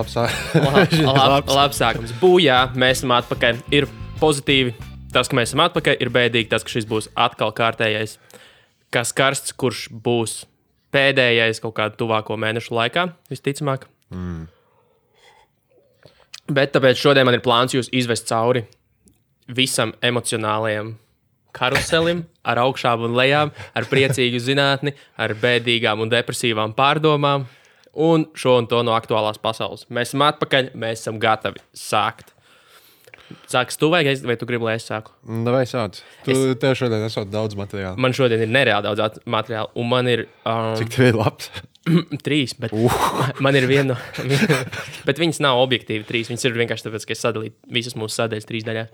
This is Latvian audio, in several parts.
labs sākums. Būjā, mēs esam atpakaļ. Ir pozitīvi tas, ka mēs esam atpakaļ. Ir bēdīgi tas, ka šis būs atkal kārtējais. Kas karsts, kurš būs pēdējais kaut kādu tuvāko mēnešu laikā, visticamāk. Bet tāpēc šodien man ir plāns jūs izvest cauri visam emocionālajam karuselim, ar augšām un lejām, ar priecīgu zinātni, ar bēdīgām un depresīvām pārdomām un šo un to no aktuālās pasaules. Mēs esam atpakaļ, mēs esam gatavi sākt. Sāks tu vai tu gribi, lai es sāku? Vai sāc. Tev šodien esot daudz materiāla. Man šodien ir nereāli daudz materiāla, un man ir... Cik tev ir labs? 3, bet man ir viena... bet viņas nav objektīvi 3, viņas ir vienkārši tāpēc, ka es sadalīju visas mūsu sadaļas 3 daļās.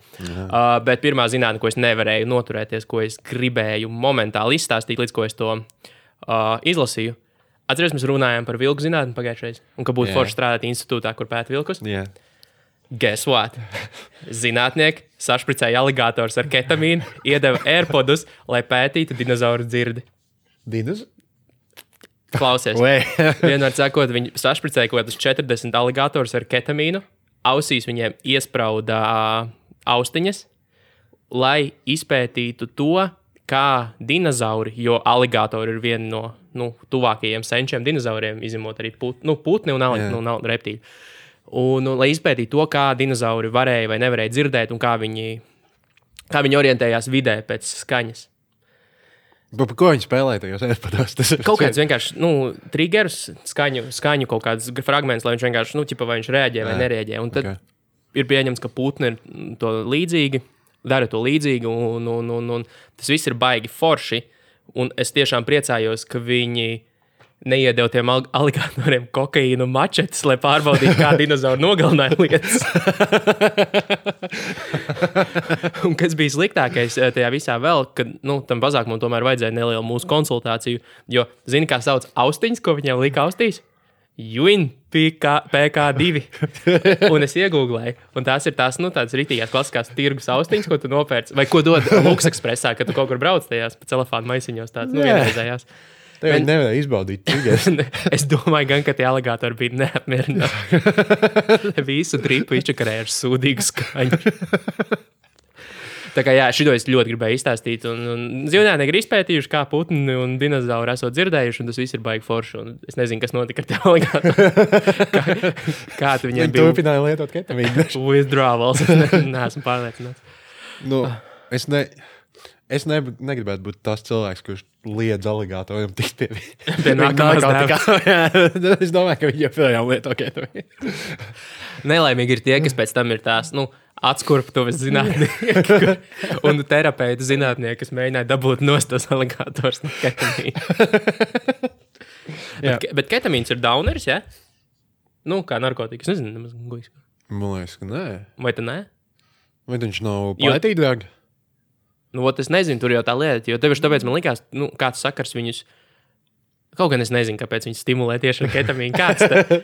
Bet pirmā zinātne, ko es nevarēju noturēties, ko es gribēju momentāli izstāstīt, līdz ko es to izlasīju. Atceries, mēs runājām par vilku zinātni pagājušreiz, un ka būtu forši strādāt institūtā, kur pēta vilkus. Guess what? Zinātnieki sašpricēja aligātors ar ketamīnu, iedeva AirPodus, lai pētītu dinozauru dzirdi. Klausies. Vienmēr sakot, viņi sašpricēja kaut kādus 40 aligātors ar ketamīnu, ausīs viņiem iesprauda austiņas, lai izpētītu to, kā dinozauri, jo aligātori ir viena no tuvākajiem senčiem dinozauriem, izņemot arī putni un reptīļi. Un lai izpētītu to, kā dinozauri varēja vai nevarēja dzirdēt un kā viņi orientējās vidē pēc skaņas. Par ko viņi spēlēja tajos AirPodos? Kaut kāds vienkārši, triggerus, skaņu kaut kāds fragments, lai viņš vienkārši, vai viņš reaģē vai nereaģē. Un tad ir pieņemts, ka putni ir to līdzīgi, dara to līdzīgi, un tas viss ir baigi forši. Un es tiešām priecājos, ka viņi neiedeva tiem aligātoriem kokaīnu mačetes, lai pārbaudītu, kā dinozauri nogalināja lietas. Un kas bija sliktākais tajā visā vēl, kad tam bazākumam tomēr vajadzēja nelielu mūsu konsultāciju, jo zini, kā sauc austiņas, ko viņiem lika austīs? Juin PK2. Un es iegūglēju, un tās ir tādas ritīgās klasiskās tirgus austiņas, ko tu nopērci, vai ko dod Lux Expressā, kad tu kaut kur brauc tajās pa celofānu maisiņos tāds, vienreizējās. Tev nevarēja izbaudīt triggers. Es domāju gan, ka tie aligātori bija neapmierināti. Visu dripu izčakarēja ar sūdīgu skaņu. Tā kā šito es ļoti gribēju izstāstīt. Un zinātnieki ir izpētījuši, kā putni un dinozauri esot dzirdējuši, un tas viss ir baigi forši. Un es nezinu, kas notika ar tie aligātori. Kāds viņiem bija? Viņi turpināja lietot ketamīnu. Withdrawals. Neesmu pārliecināts. Es negribētu būt tas cilvēks, kurš liedz aligātoriem tikt pie nākamās dēļas. Es domāju, ka viņi joprojām lieto ketamīnu. Nelaimīgi ir tie, kas pēc tam ir tās, atskurptuves zinātnieki un terapeiti zinātnieki, kas mēģināja dabūt nost tos aligātors no ketamīna. Bet ketamīns ir dauneris, ja? Kā narkotikas, nezinu, nemaz guļas. Man liekas, ka nē. Vai tu nē? Vai viņš nav pētīdrāgi? Es nezinu, tur jau tā lieta, jo tevišķi tāpēc man likās, kāds sakars viņus, kaut gan es nezinu, kāpēc viņi stimulē tieši ar ketamīnu,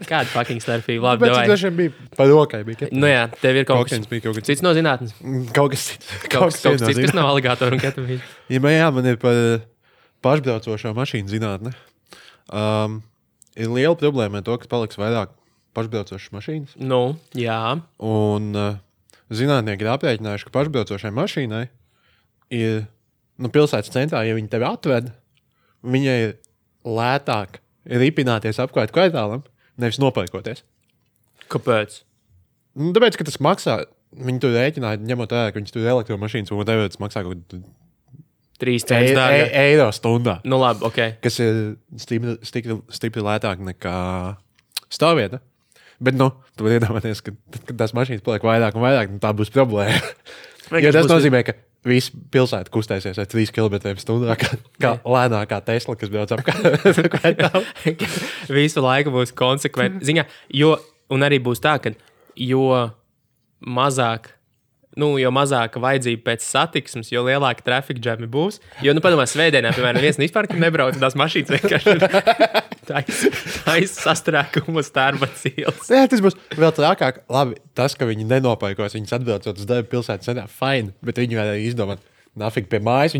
kāda fucking starpība, labi, davai. Tāpēc dažiem bija pa rokai, bija ketamīna. Tev ir kaut kas cits no zinātnes. Kaut kas cits. Kaut kas cits, kas nav aligātoru un ketamīna. Jā, man ir par pašbraucošo mašīnu zinātne. Ir liela problēma ar to, ka paliks vairāk pašbraucošas mašīnas. Jā. Un zinātnieki ir aprēķinājuši, ka pašbraucošai mašīnai ir pilsētas centrā, ja viņi tevi atved, viņai ir lētāk ripināties apkārt kvartālam, nevis nopērkoties. Kāpēc? Tāpēc, ka tas maksā, viņi tur rēķināja, ņemot vērā, ka viņi tur elektromašīnas, un tas maksā kaut 3 cents dārgāk. Eiro stundā. Labi, ok. Kas ir stipri lētāk nekā stāvvieta. Bet, tu vari iedomāties, ka tās mašīnas paliek vairāk un vairāk, tā būs problēma. Jo tas nozīmē, ka visi pilsēta kustēsies ar 3 km/h, kā lēnākā Tesla, kas brauc apkārt. Visu laiku būs konsekventi. Un arī būs tā, ka jo mazāka vajadzība pēc satiksmes, jo lielāka trafika džami būs. Jo, padomā, svētdienā, piemēram, viens vispār nebrauc, tās mašīnas vienkārši taisa sastrēkumu uz Tērbatas ielas. Jā, tas būs vēl trakāk. Labi, tas, ka viņi nenopērkos, viņas atbraucot uz darbu pilsētas centrā, fine, bet viņi varēja izdomāt, nafīgi pie mājas.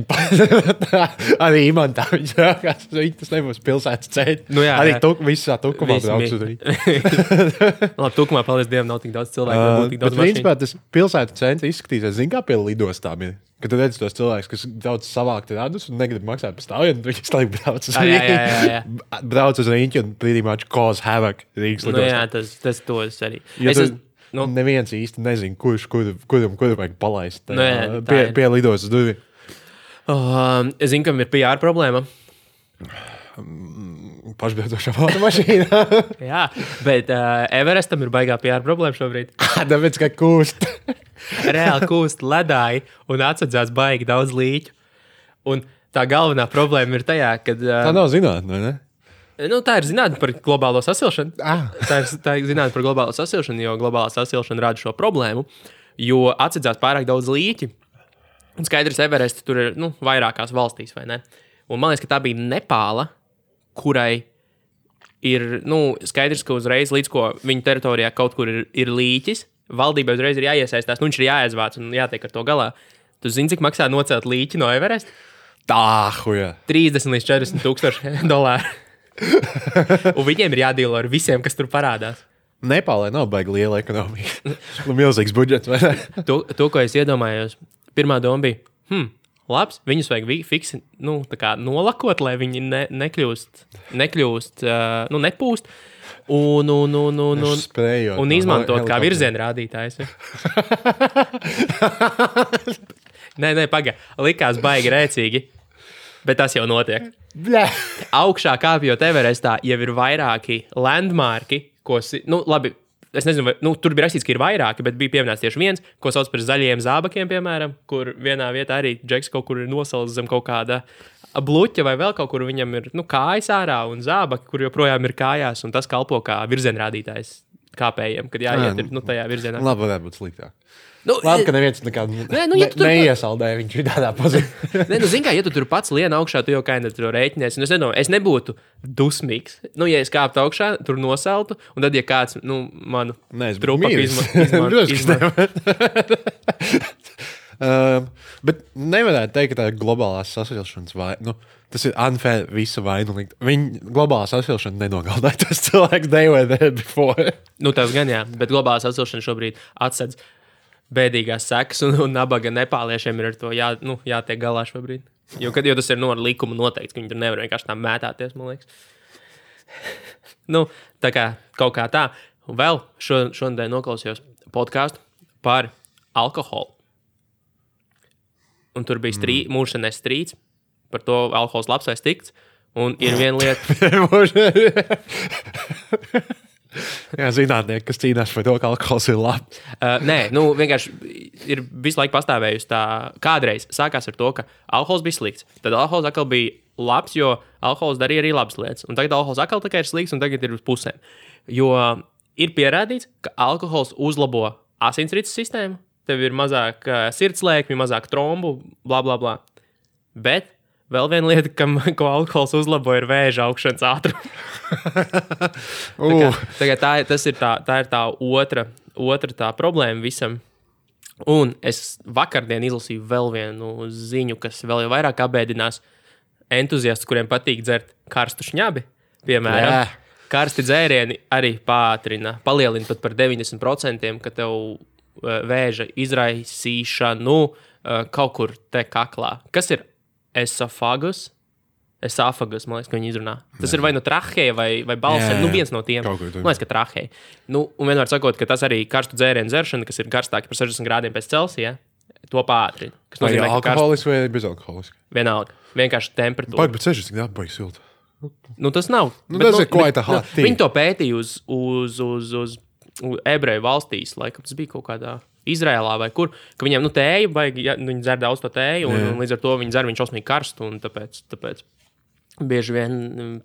Arī imantā viņš rākās. Tas nebūs pilsētas ceļš. Nu, jā, arī jā. Visā tukumā brauks uz Rīgu. Labi, tukumā, paldies Dievam, nav tik daudz cilvēku. Tik daudz bet principā tas pilsētas centrs izskatīsies, zin kā pie lidostām ir. Kad tu redzi tos cilvēkus, kas daudz savākt radus un negrib maksāt par stāvienu, tad viņi slēg brauc uz Rīgu. Jā. Brauc uz Rīgu un pretty much cause havoc Rīgas lidostā. Nu, jā, tas tos arī. Neviens īsti nezin, kuram vajag palaist pie lidostas durvīm. Es zinu, kam ir PR problēma. Pašbraucošā automašīnā. Jā, bet Everestam ir baigā PR problēma šobrīd. Tāpēc, ka kūst. Reāli kūst ledāji un atsadzās baigi daudz līķu. Un tā galvenā problēma ir tajā, ka... Tā nav zinātne, vai ne? Nu, tā ir zinātne par globālo sasilšanu. Tā ir zinātne par globālo sasilšanu, jo globālā sasilšana rada šo problēmu, jo atsadzās pārāk daudz līķi. Un skaidrs, Everest tur ir vairākās valstīs, vai ne? Un man liekas, ka tā bija Nepāla, kurai ir skaidrs, ka uzreiz līdz ko viņa teritorijā kaut kur ir līķis, valdībai uzreiz ir jāiesaistās, viņš ir jāiezvāc un jātiek ar to galā. Tu zini, cik maksā nocelt līķi no Everest? Huja. 30 līdz 40 tūkstoši dolāru. Un viņiem ir jādīlo ar visiem, kas tur parādās. Nepālē nav baigi liela ekonomika. Milzīgs budžets, vai ne? To, ko es iedomājos, pirmā doma bija, labs, viņus vajag fiksi, tā kā nolakot, lai viņi nekļūst, nepūst. Un izmantot kā virziena rādītājs. Nē, pagaidi. Likās baigi rēcīgi, bet tas jau notiek. Augšā kāpjot Everestā jau ir vairāki landmarki, labi, es nezinu, vai, tur bija rakstīts, ka ir vairāki, bet bija pieminēts tieši viens, ko sauc par zaļiem zābakiem, piemēram, kur vienā vietā arī Džeks kaut kur ir nosalis zem kaut kāda bluķa vai vēl kaut kur viņam ir kājas ārā un zābaki, kur joprojām ir kājās, un tas kalpo kā virzienrādītājs kāpējiem, kad jāiet ir tajā virzienā. Labi, varētu būt sliktāk. Labi, ka neviens neiesaldēja viņš tādā pozīcijā. Zini kā, ja tu tur pats lien augšā, tu jau kaini tur rēķinies. Es nebūtu dusmīgs. Ja es kāptu augšā, tur nosaltu, un tad, ja kāds, manu trupaku izmanto. Bet nevarētu teikt, ka tā ir globālās sasilšanas vaina. Tas ir unfair visu vainu likt. Viņa globālā sasilšana nenogaldāja tos cilvēkus they were there before. Tas gan jā, bet globālā sasilšana šobrīd atsedz bēdīgās sekas, un nabaga nepāliešiem ir ar to jātiek galā šobrīd. Jo tas ir ar likumu noteikts, ka viņi tur nevar vienkārši tā mētāties, man liekas. Tā kā kaut kā tā. Un vēl šodien noklausījos podcastu par alkoholu. Un tur bija mūžšanais strīds par to alkohols labs vai slikts. Un ir viena lieta... Jā, zinātnieki, kas cīnās par to, ka alkohols ir labs. Nē, vienkārši ir visu laiku pastāvējusi tā. Kādreiz sākās ar to, ka alkohols bija slikts. Tad alkohols atkal bija labs, jo alkohols darīja arī labas lietas. Un tagad alkohols atkal tikai ir slikts, un tagad ir uz pusēm. Jo ir pierādīts, ka alkohols uzlabo asinsrites sistēmu. Tev ir mazāk sirdslēkmi, mazāk trombu, bla, bla, bla. Bet vēl viena lieta, ko alkohols uzlabo, ir vēža augšanas ātrums. Tā ir tā otra tā problēma visam. Un es vakardien izlasīju vēl vienu ziņu, kas vēl jau vairāk apbēdinās entuziastus, kuriem patīk dzert karstu šņabi. Piemēram, karsti dzērieni arī palielina pat par 90%, ka tev vēža izraisīšanu kaut kur te kaklā. Kas ir esofagus? Esāfagus, man liekas, ka viņi izrunā. Tas ir vai no traheja vai balsēm. Viens no tiem. Man liekas, ka traheja. Un vienmēr sakot, ka tas arī karstu dzērienu dzeršana, kas ir karstāki par 60 grādiem pēc Celsija, to pātrina. Vai alkoholiski vai bezalkoholiski? Vienalga. Vienkārši temperatūra. Bet 60 grādi baigi silta. Tas nav. Tas ir quite a hot thing. Viņi to pētīja uz ebreju valstīs, laikam tas bija kaut kādā Izrēlā vai kur, ka viņiem tēju baigi, viņi dzer daudz to tēju, un līdz ar to viņi dzer viņš šausmīgi karstu, un tāpēc bieži vien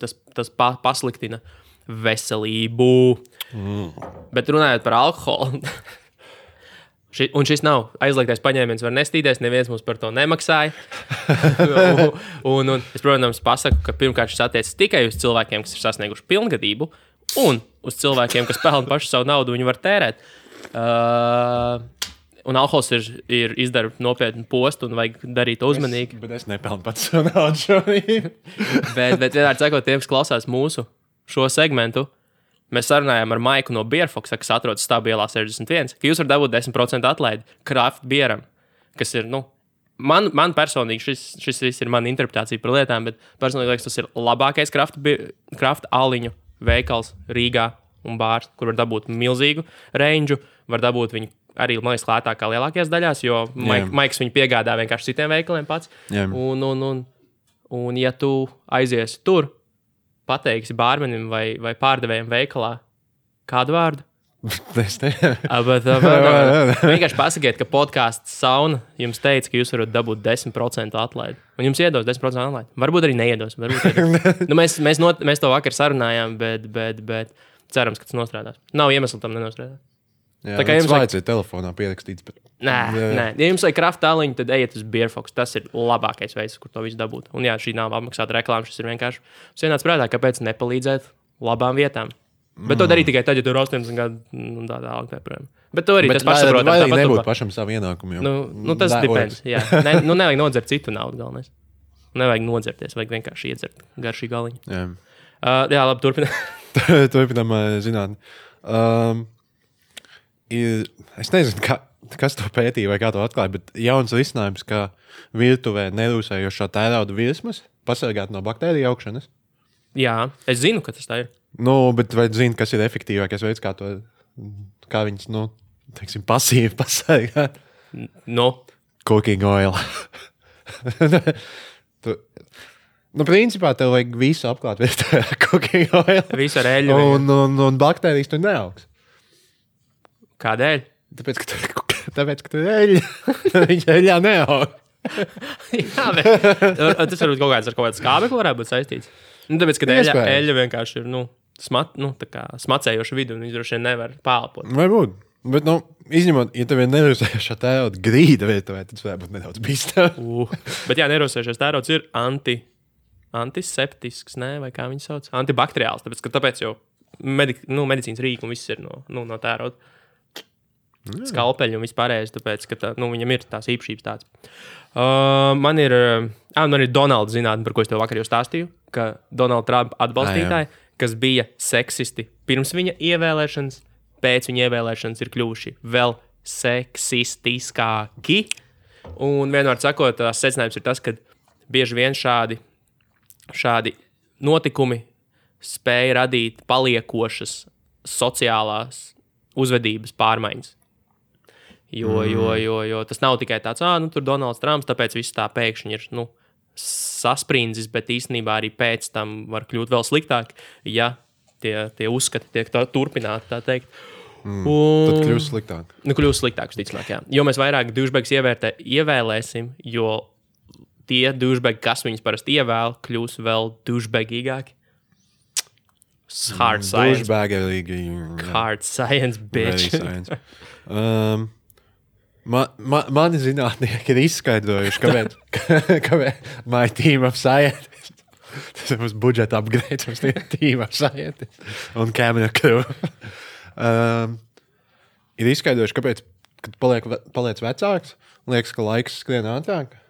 tas pasliktina veselību. Bet runājot par alkoholu, un šis nav aizliegtais paņēmiens, var nestīties, neviens mums par to nemaksāja. un es, protams, pasaku, ka pirmkārt šis attiecas tikai uz cilvēkiem, kas ir sasnieguši pilngadību, un uz cilvēkiem, kas pelna pašu savu naudu, viņi var tērēt. Un alkohols ir izdara nopietnu postu un vajag darīt uzmanīgi. Bet es nepelnu pats savu naudu šodien. bet vienmēr sakot, tiem, kas klausās mūsu šo segmentu, mēs sarunājām ar Maiku no Beerfoxa, kas atrodas Stābielā 61, ka jūs varat dabūt 10% atlaidi craft bieram, kas ir, man personīgi, šis viss ir mana interpretācija par lietām, bet personīgi liekas, tas ir labākais craft aliņu veikals Rīgā un bārs, kur var dabūt milzīgu range, var dabūt viņu arī, man liekas, lētāk kā lielākajās daļās, jo Maiks viņu piegādā vienkārši citiem veikaliem pats. Un ja tu aiziesi tur, pateiksi bārmenim vai pārdevējiem veikalā kādu vārdu? Es ne. Vienkārši pasakiet, ka podcasts Sauna jums teica, ka jūs varat dabūt 10% atlaidi. Un jums iedos 10% atlaidi. Varbūt arī neiedos. Mēs to vakar sarunājām, bet cerams, ka tas nostrādās. Nav iemesla tam nenostrādāt. Jā, tā kā jums vajadzēja telefonā pierakstīts. Bet... Nē. Ja jums vajag craft aliņu, tad ejiet uz Beerfox. Tas ir labākais veids, kur to visu dabūt. Un jā, šī nav apmaksāta reklāma. Šis ir vienkārši vienāds prātā, kāpēc nepalīdzēt labām vietām. Bet to darīt tikai tad, ja tur ir 80 gadu un tā tālāk. Bet to arī tas pašsaprotam. Vai nebūtu pašam savu ienākumu? Tas depends. Jā. Nevajag nodzert citu naudu galvenais. Nevajag nodzerties, vajag vienkārši iedzert garšīgu aliņu. Jā, labi, turpinām. Turpinām zinātni. Es nezinu, kas to pētīja vai kā to atklāja, bet jauns risinājums, ka virtuvē nerūsējošā tērauda virsmas pasargāt no baktēriju augšanas. Jā, es zinu, ka tas tā ir. Bet vai zini, kas ir efektīvākais veids, kā viņas, teiksim, pasīvi pasargāt? Cooking oil. Principā tev vajag visu apklāt virtuvē ar cooking oil. Visu ar eļļu. Un baktērijas tur neaugs. Kādēļ? Tāpēc, ka tu eļļa. Viņš eļļā neaug. Jā, bet tas varbūt kaut kāds skābekli varētu būt saistīts. Tāpēc, ka eļļa vienkārši ir, smacējoša vidu, un viņš droši vien nevar pālpot. Varbūt. Bet, izņemot, ja tev ir nerūsējošā tērauda grīda virtuvē, tad tas var būt nedaudz bīstami. Bet jā, nerūsējošais tērauds ir antiseptisks, vai kā viņi sauc? Antibakteriāls, tāpēc jau medicīnas rīki un viss ir no tērauda. Skalpeļi un vispārējais, tāpēc, ka viņam ir tās īpašības tāds. Man ir Donalda zinātne, par ko es tev vakar jau stāstīju, ka Donalda Trumpa atbalstītāji, kas bija seksisti pirms viņa ievēlēšanas, pēc viņa ievēlēšanas ir kļuvuši vēl seksistiskāki. Un vienmēr sakot, tās secinājums ir tas, ka bieži vien šādi notikumi spēja radīt paliekošas sociālās uzvedības pārmaiņas. Jo tas nav tikai tāds, tur Donalds Trumps, tāpēc viss tā pēkšņi ir, sasprindzis, bet īstenībā arī pēc tam var kļūt vēl sliktāk, ja tie uzskati tiek turpināti, tā teikt. Tad kļūst sliktāk. Kļūst sliktāk, visticamāk, jā. Jo mēs vairāk douchebags ievēlēsim, jo tie douchebagi, kas viņus parasti ievēl, kļūs vēl douchebagīgāki. Hard science. Hard science, bitch. Mani zinātnieki ir izskaidrojuši, kāpēc my team of scientists. Tas ir mums budžeta upgrade, mums ir team of scientists un camera crew. Ir izskaidrojuši, kāpēc, kad paliec vecāks, liekas, ka laiks skrien ātrāk.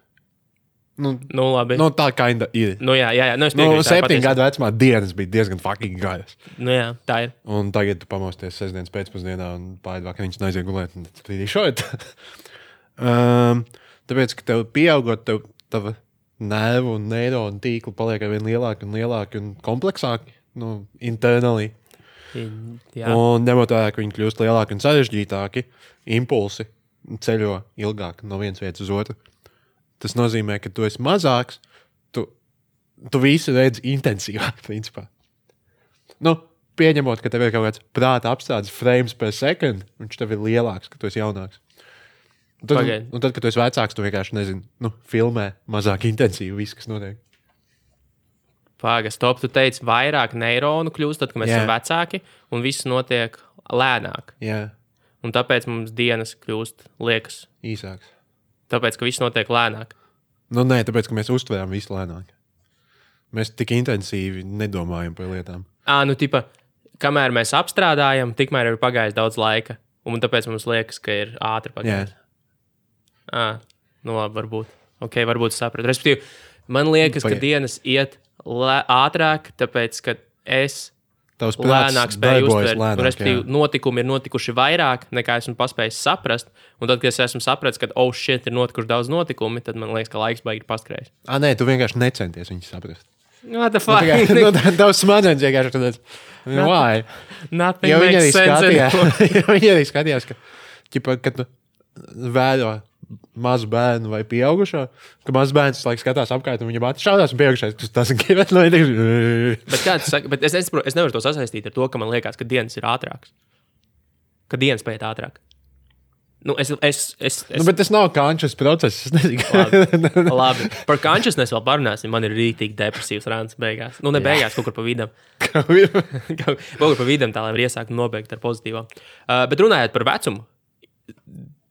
Labi. Tā kinda ir. Jā. 7 gadu vecumā dienas bija diezgan fucking garas. Jā, tā ir. Un tagad tu pamosties sestdienas pēcpusdienā un pāri vakariņas aiziet gulēt. Tad ir šeit. Tāpēc, ka tev pieaugot, tava nervu un neironu tīkli paliek arvien lielāki un lielāki un kompleksāki. Internally. Jā. Un ņemot vērā, ka viņi kļūst lielāki un sarežģītāki, impulsi ceļo ilgāk no vienas vietas uz otru. Tas nozīmē, ka tu esi mazāks, tu visu redzi intensīvāk, principā. Pieņemot, ka tev ir kaut kāds prāta apstādes frames per second, viņš tev ir lielāks, ka tu esi jaunāks. Un tad, kad tu esi vecāks, tu vienkārši nezini, filmē mazāk intensīvi viss, kas notiek. Stop, tu teici, vairāk neironu kļūst, tad, kad mēs esam vecāki, un viss notiek lēnāk. Jā. Un tāpēc mums dienas kļūst, liekas, īsāks. Tāpēc, ka viss notiek lēnāk. Nē, tāpēc, ka mēs uztveram visu lēnāk. Mēs tik intensīvi nedomājam par lietām. Kamēr mēs apstrādājam, tikmēr ir pagājis daudz laika. Un tāpēc mums liekas, ka ir ātri pagājis. Nu labi, varbūt. Ok, varbūt sapratu. Respektīvi, man liekas, ka dienas iet ātrāk, tāpēc, ka es lēnāk spēju uztvert. Respektīvi, notikumi ir notikuši vairāk, nekā esmu paspējis saprast. Un tad, kad es esmu sapratis, ka, shit, ir notikuši daudz notikumi, tad man liekas, ka laiks baigi paskrējis. Nē, tu vienkārši necenties viņus saprast. What the fuck? Tavs smadzenes vienkārši tad. Why? Nothing makes sense. Viņi arī skatījās, ka, kad tu vēro mazu bērnu vai pieaugušo, ka mazs bērns skatās apkārt un viņam šaudās un pieaugušais. Tas ir gribēt, lai Bet kā tu saki, bet es nevaru to sasaistīt ar to, ka man liekas, ka dienas ir ātrāks. Ka dienas paiet ātrāk. Nu, bet tas nav conscious process. Es nezinu. Labi. Par consciousness vēl parunāsim. Man ir rītīgi depresīvs rāns beigās. Nu, ne beigās, kaut kur pa vidam. Kaut kur pa vidam tā, lai var iesākt un nobeigt ar pozitīvām. Bet runājot par vecumu,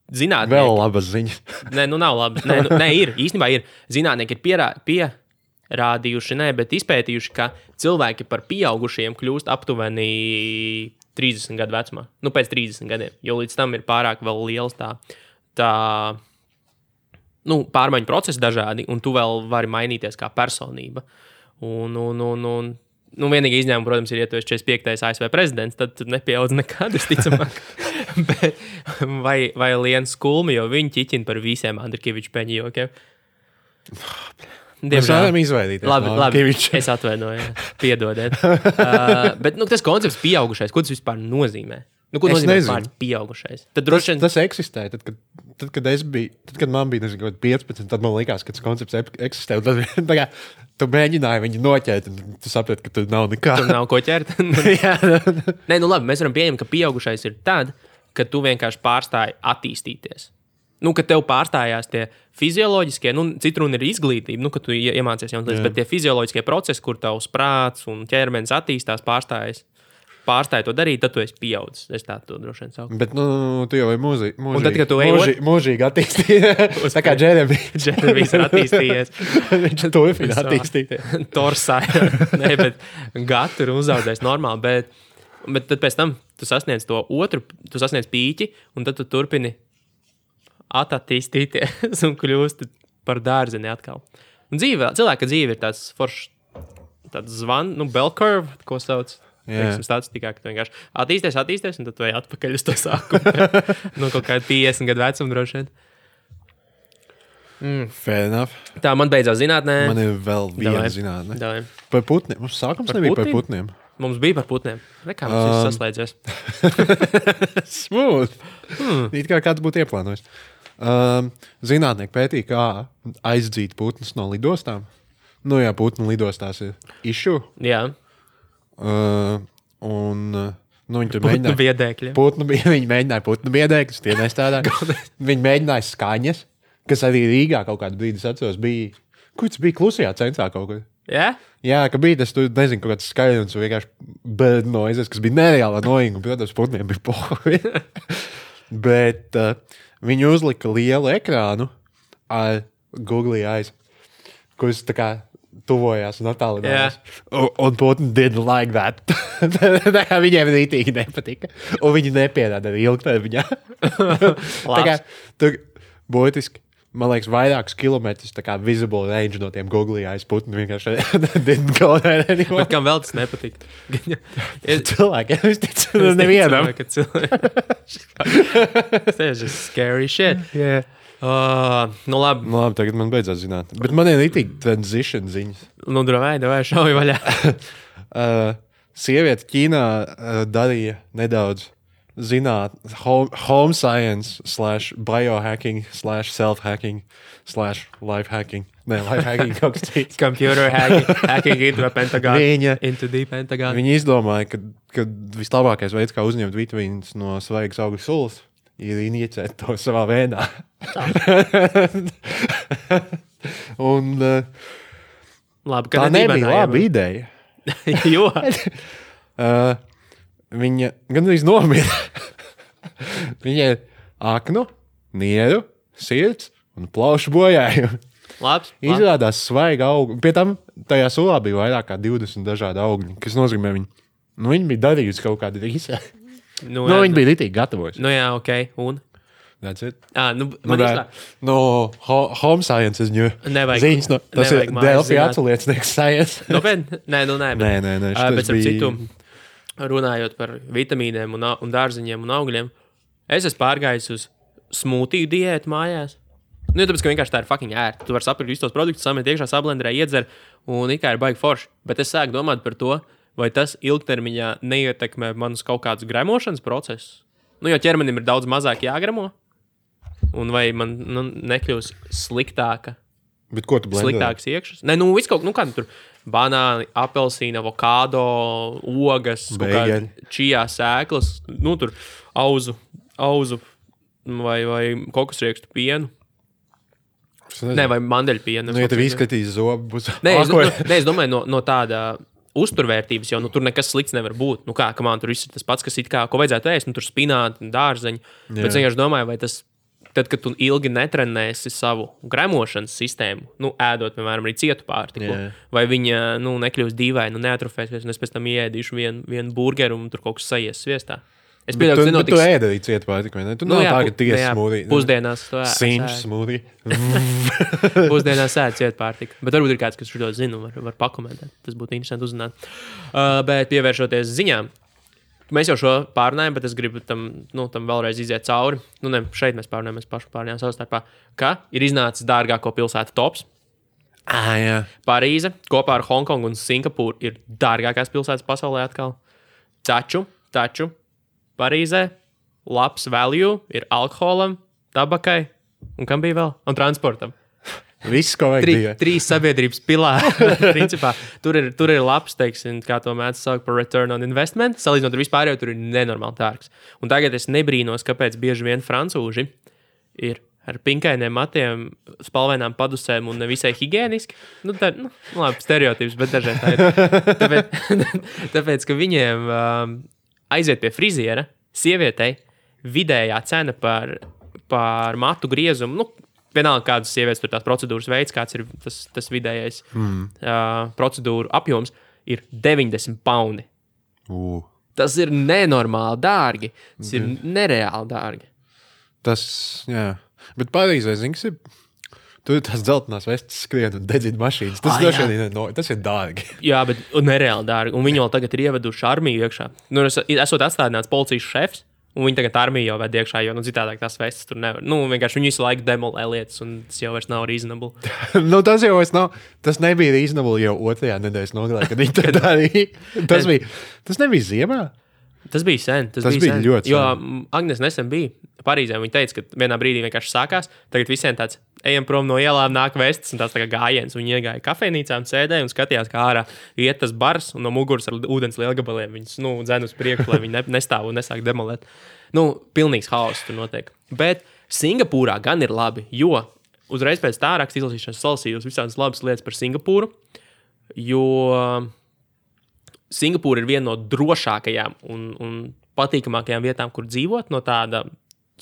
zinātnieki... Vēl labas ziņas. Nē, nu nav labi. Nē, ir. Īstenībā ir. Zinātnieki ir pierādījuši, bet izpētījuši, ka cilvēki par pieaugušiem kļūst aptuveni 30 gadu vecumā. Nu, pēc 30 gadiem. Jo līdz tam ir pārāk vēl liels pārmaiņu procesi dažādi, un tu vēl vari mainīties kā personība. Vienīgi izņēmumi, protams, ir, ja tu esi 45. ASV prezidents, tad tu nepieaudz nekad, es ticamāk. vai Liens Kulmi, jo viņi ķiķina par visiem Andrikeviču peņu jokiem. Mēs varam izvairīties. Labi, es atvainoju, piedodiet. Bet tas koncepts pieaugušais, ko tas vispār nozīmē? Ko nozīmē vispār pieaugušais? Tas eksistē. Tad, kad man bija 15, tad man likās, ka tas koncepts eksistē. Tad, tu mēģināji viņu noķert, un tu saprati, ka tur nav nekā. Tur nav ko ķert. Nē, labi, mēs varam pieņemt, ka pieaugušais ir tad, kad tu vienkārši pārstāji attīstīties. Kad tev pārstājās tie fizioloģiskie, citu runa ir izglītība, kad tu iemācies jaunas lietas, bet tie fizioloģiskie procesi, kur tavs prāts un ķermenis attīstās, pārstāja to darīt, tad tu esi pieaudzis. Es tā to droši vien saucu. Bet, tu jau esi mūžīgi attīstījies. Tā kā Džeremijs ir attīstījies. Viņš turpina attīstīties. Torsāja. Nē, bet gatu ir uzaudzējis normāli, bet tad pēc tam tu sasniedz to otru, tu sasniedz pīķi, un tad tu turpini attīstīties un kļūst par dārzeni atkal. Un cilvēka dzīve ir tāds foršs, tāds bell curve, ko sauc. Tāds tikai, ka tu vienkārši attīsties, un tad tu ej atpakaļ uz to sākumu. Kaut kādu 50 gadu vecumu droši vien. Fair enough. Tā, man beidzās zinātnē. Man ir vēl viena zinātnē. Davai. Par putniem. Mums sākums nebija par putniem. Mums bija par putniem. Nekā mums viss saslēdzies. Smooth. It kā kāds būtu ieplānojis. Zinātnieki pētīja, kā aizdzīt putnus no lidostām. Jā, putnu lidostās ir issue. Jā. Viņi tur mēģināja biedēkļi. Viņi mēģināja putnu biedēkļus, tie nestrādāja. Viņi mēģināja skaņas, kas arī Rīgā kaut kādu brīdi, es atceros, bija. Kur tas bija klusajā centrā kaut kur? Yeah? Jā, ka bija tas, tu nezinu, kaut kāds skaļums, vienkārši bird noises, kas bija nereālā noīga, un, protams, putniem bija pohi. Bet viņi uzlika lielu ekrānu ar Google Eyes, kurus tā kā tuvojās un attālinājās. Un putni didn't like that. Viņiem rītīgi nepatika. Un viņi nepierāda arī ilgtermiņā. Tā kā tur būtiski, man liekas, vairākus kilometrus tā kā visible range no tiem Google Eyes putni vienkārši didn't go there anymore. Bet kam vēl tas nepatika? Cilvēkiem, es ticu, nevienam. Tas ir just scary shit. Yeah. Labi. Labi, tagad man beidzās zināt. Bet man ir rītīgi transition ziņas. Davai, šauj vaļā. Sieviete Ķīnā darīja nedaudz home science /biohacking /self-hacking /life-hacking. Nē, life-hacking kaut kas cits. Computer hacking into a pentagon. Into the pentagon. Viņa izdomāja, ka vislabākais veids, kā uzņemt vitamīnus no svaigas augļu sulas, ir injicēt to savā vēdā. Un labi, tā nebija laba ideja. Jo. Viņa gandrīz nomira. Viņa ir aknu, nieru, sirds un plaušu bojājumi. Labs. Izrādās svaiga augļu. Pie tam tajā sulā bija vairāk kā 20 dažādi augļi, kas nozīmē viņi bija darījusi kaut kādu rīsē. Viņi bija ritīgi gatavojuši. Jā, ok. Un? That's it. Home science is new. Nevajag. Ziņas, tas ir Delfi atsaliecnieks science. Nopietni? Nē. Nē. Bet ar citu, runājot par vitamīniem un dārziņiem un augļiem, es esmu pārgājis uz smūtiju diētu mājās. Tāpēc, ka vienkārši tā ir fucking ērta. Tu vari sapirkt visus tos produktus, samet iekšā sablenderē, iedzer, un it kā ir baigi forši. Bet es sāku domāt par to, vai tas ilgtermiņā neietekmē manus kaut kādus gremošanas procesus. Jo ķermenim ir daudz mazāk jāgremo, un vai man nekļūs sliktāka. Bet ko tu blendē? Sliktāks iekšas. Nē, viss kaut kā tur banāni, apelsīna, avokado, ogas, čijā sēklas, tur auzu vai kokosriekstu pienu. Nē, vai mandeļpienu. Ja tev izskatīs zobu, būs... Nē, es domāju, no tāda uzturvērtības jau, tur nekas slikts nevar būt. Man tur viss ir tas pats, kas it kā, ko vajadzētu ēst, tur spināti, dārzeņi. Bet es vienkārši domāju, vai tas, tad, kad tu ilgi netrenēsi savu gremošanas sistēmu, ēdot, piemēram, arī cietu pārtiku, vai viņa, nekļūs dīvaini, neatrofēsies, un es pēc tam ieēdīšu vienu burgeru, un tur kaut kas sajies sviestā. Es pieļauju, ka tu ēdi arī cietu pārtiku, vai ne? Tu nav tā, ka tiesa smūdī. Pusdienās to Sinš smūdī. Pusdienās ēd cietu pārtiku. Bet varbūt ir kāds, kas šo zinu, var pakomentēt. Tas būtu interesanti uzzināt. Bet pievēršoties ziņām, mēs jau šo pārunājam, bet es gribu tam vēlreiz iziet cauri. Šeit mēs pārunājam, mēs paši pārunājam savstarpā, ka ir iznācis dārgāko pilsētu tops. Jā. Parīze kopā ar Hongkongu un Singapūru ir dārgākās pilsētas pasaulē atkal. Taču Parīzē labs value ir alkoholam, tabakai un kam bija vēl? Un transportam. Viss, ko vajag bija. Trīs sabiedrības pilāri. Principā, tur ir labs, teiksim, kā to mēdz saukt par return on investment. Salīdzinot ar vispārējo, tur ir nenormāli dārgs. Un tagad es nebrīnos, kāpēc bieži vien francūži ir ar pinkainiem matiem, spalvainām padusēm un nevisai higieniski. Labi, stereotips, bet dažreiz tā ir. Tāpēc, ka viņiem aiziet pie friziera, sievietei vidējā cena par matu griezumu, vienalga kādas sievietes tur tās procedūras veids, kāds ir tas vidējais procedūru apjoms, ir 90 paundi. Tas ir nenormāli dārgi. Tas ir nereāli dārgi. Tas, jā. Bet Parīzē, zināms, tur ir tās dzeltenās vestes skrien un dedzina mašīnas. Tas ir dārgi. Jā, bet nereāli dārgi. Un viņi vēl tagad ir ieveduši armiju iekšā. Esot atstādināts policijas šefs, un viņi tagad armiju jau ved iekšā, jo citādāk tās vestes tur nevar. Vienkārši viņi visu laiku demolē lietas, un tas jau vairs nav reasonable. Tas jau vairs nav. Tas nebija reasonable jau 2. nedēļas nogalē, kad viņi to darīja. Tas nebija ziemā. Tas bija sen. Tas bija ļoti sen. Jo Agnes nesen bija Parīzē. Viņa teica, ka vienā brīdī vienkārši sākās. Tagad visiem tāds ejam prom no ielām, nāk vestes un tās tā kā gājiens. Viņi iegāja kafejnīcām, sēdēja un skatījās, kā ārā iet tas bars un no muguras ar ūdens lielgabaliem. Viņas dzen uz priekšu, lai viņi nestāv un nesāk demolēt. Pilnīgs haoss tur notiek. Bet Singapūrā gan ir labi, jo uzreiz pēc tā raksta izlasīšanas salasījos visādas labas lietas par Singapūru, jo Singapūra ir viena no drošākajām un patīkamākajām vietām, kur dzīvot, no tāda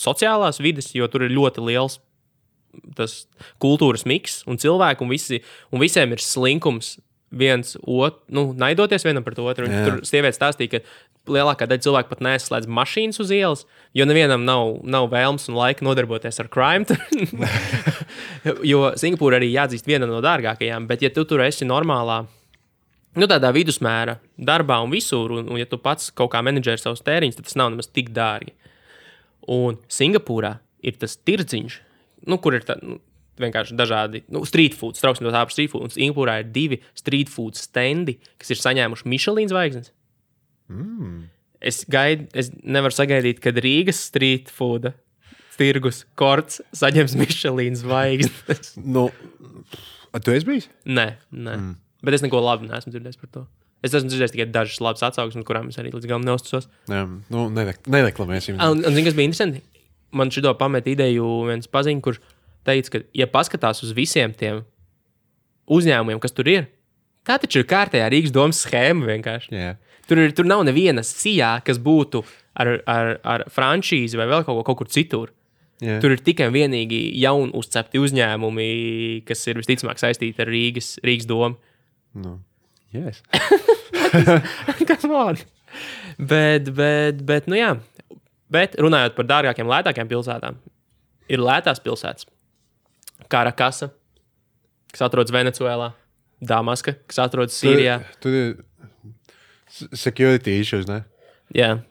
sociālās vides, jo tur ir ļoti liels tas kultūras miks un cilvēku, un visiem ir slinkums viens otru, naidoties vienam par to otru. Tur sievietes stāstīja, ka lielākā daļa cilvēku pat neslēdz mašīnas uz ielas, jo nevienam nav vēlms un laika nodarboties ar crime. Jo Singapūra arī jāatzīst viena no dārgākajām, bet ja tu tur esi normālā, tādā vidusmēra darbā un visur, un ja tu pats kaut kā menedžeri savus tēriņus, tad tas nav nemaz tik dārgi. Un Singapūrā ir tas tirdziņš, kur ir vienkārši dažādi street food, trauksim to tā par street food, un Singapūrā ir 2 street food stendi, kas ir saņēmuši Michelin zvaigznes. Es nevaru sagaidīt, kad Rīgas street food tirgus korts saņems Michelin zvaigznes. Tu esi bijis? Nē. Bet es neko labi neesmu dzirdējis par to. Es esmu dzirdējis tikai dažas labas atsauksmes, kurām es arī līdz galam neuzticos. Jā, nereklamēsim. Un zini, kas bija interesanti? Man šito pamet ideju viens paziņš, kurš teica, ka, ja paskatās uz visiem tiem uzņēmumiem, kas tur ir, tā taču ir kārtējā Rīgas domas schēma vienkārši. Yeah. Tur nav neviena sijā, kas būtu ar franšīzi vai vēl kaut kur citur. Yeah. Tur ir tikai vienīgi jauni uzcepti uzņēmumi, kas ir visticamāk saistīti ar Rīgas domu. Yes. Come on. Bet, jā. Bet runājot par dārgākiem, lētākiem pilsētām, ir lētās pilsētas. Karakasa, kas atrodas Venecuēlā, Damaska, kas atrodas Sīrijā. Tur ir security issues, ne? Jā,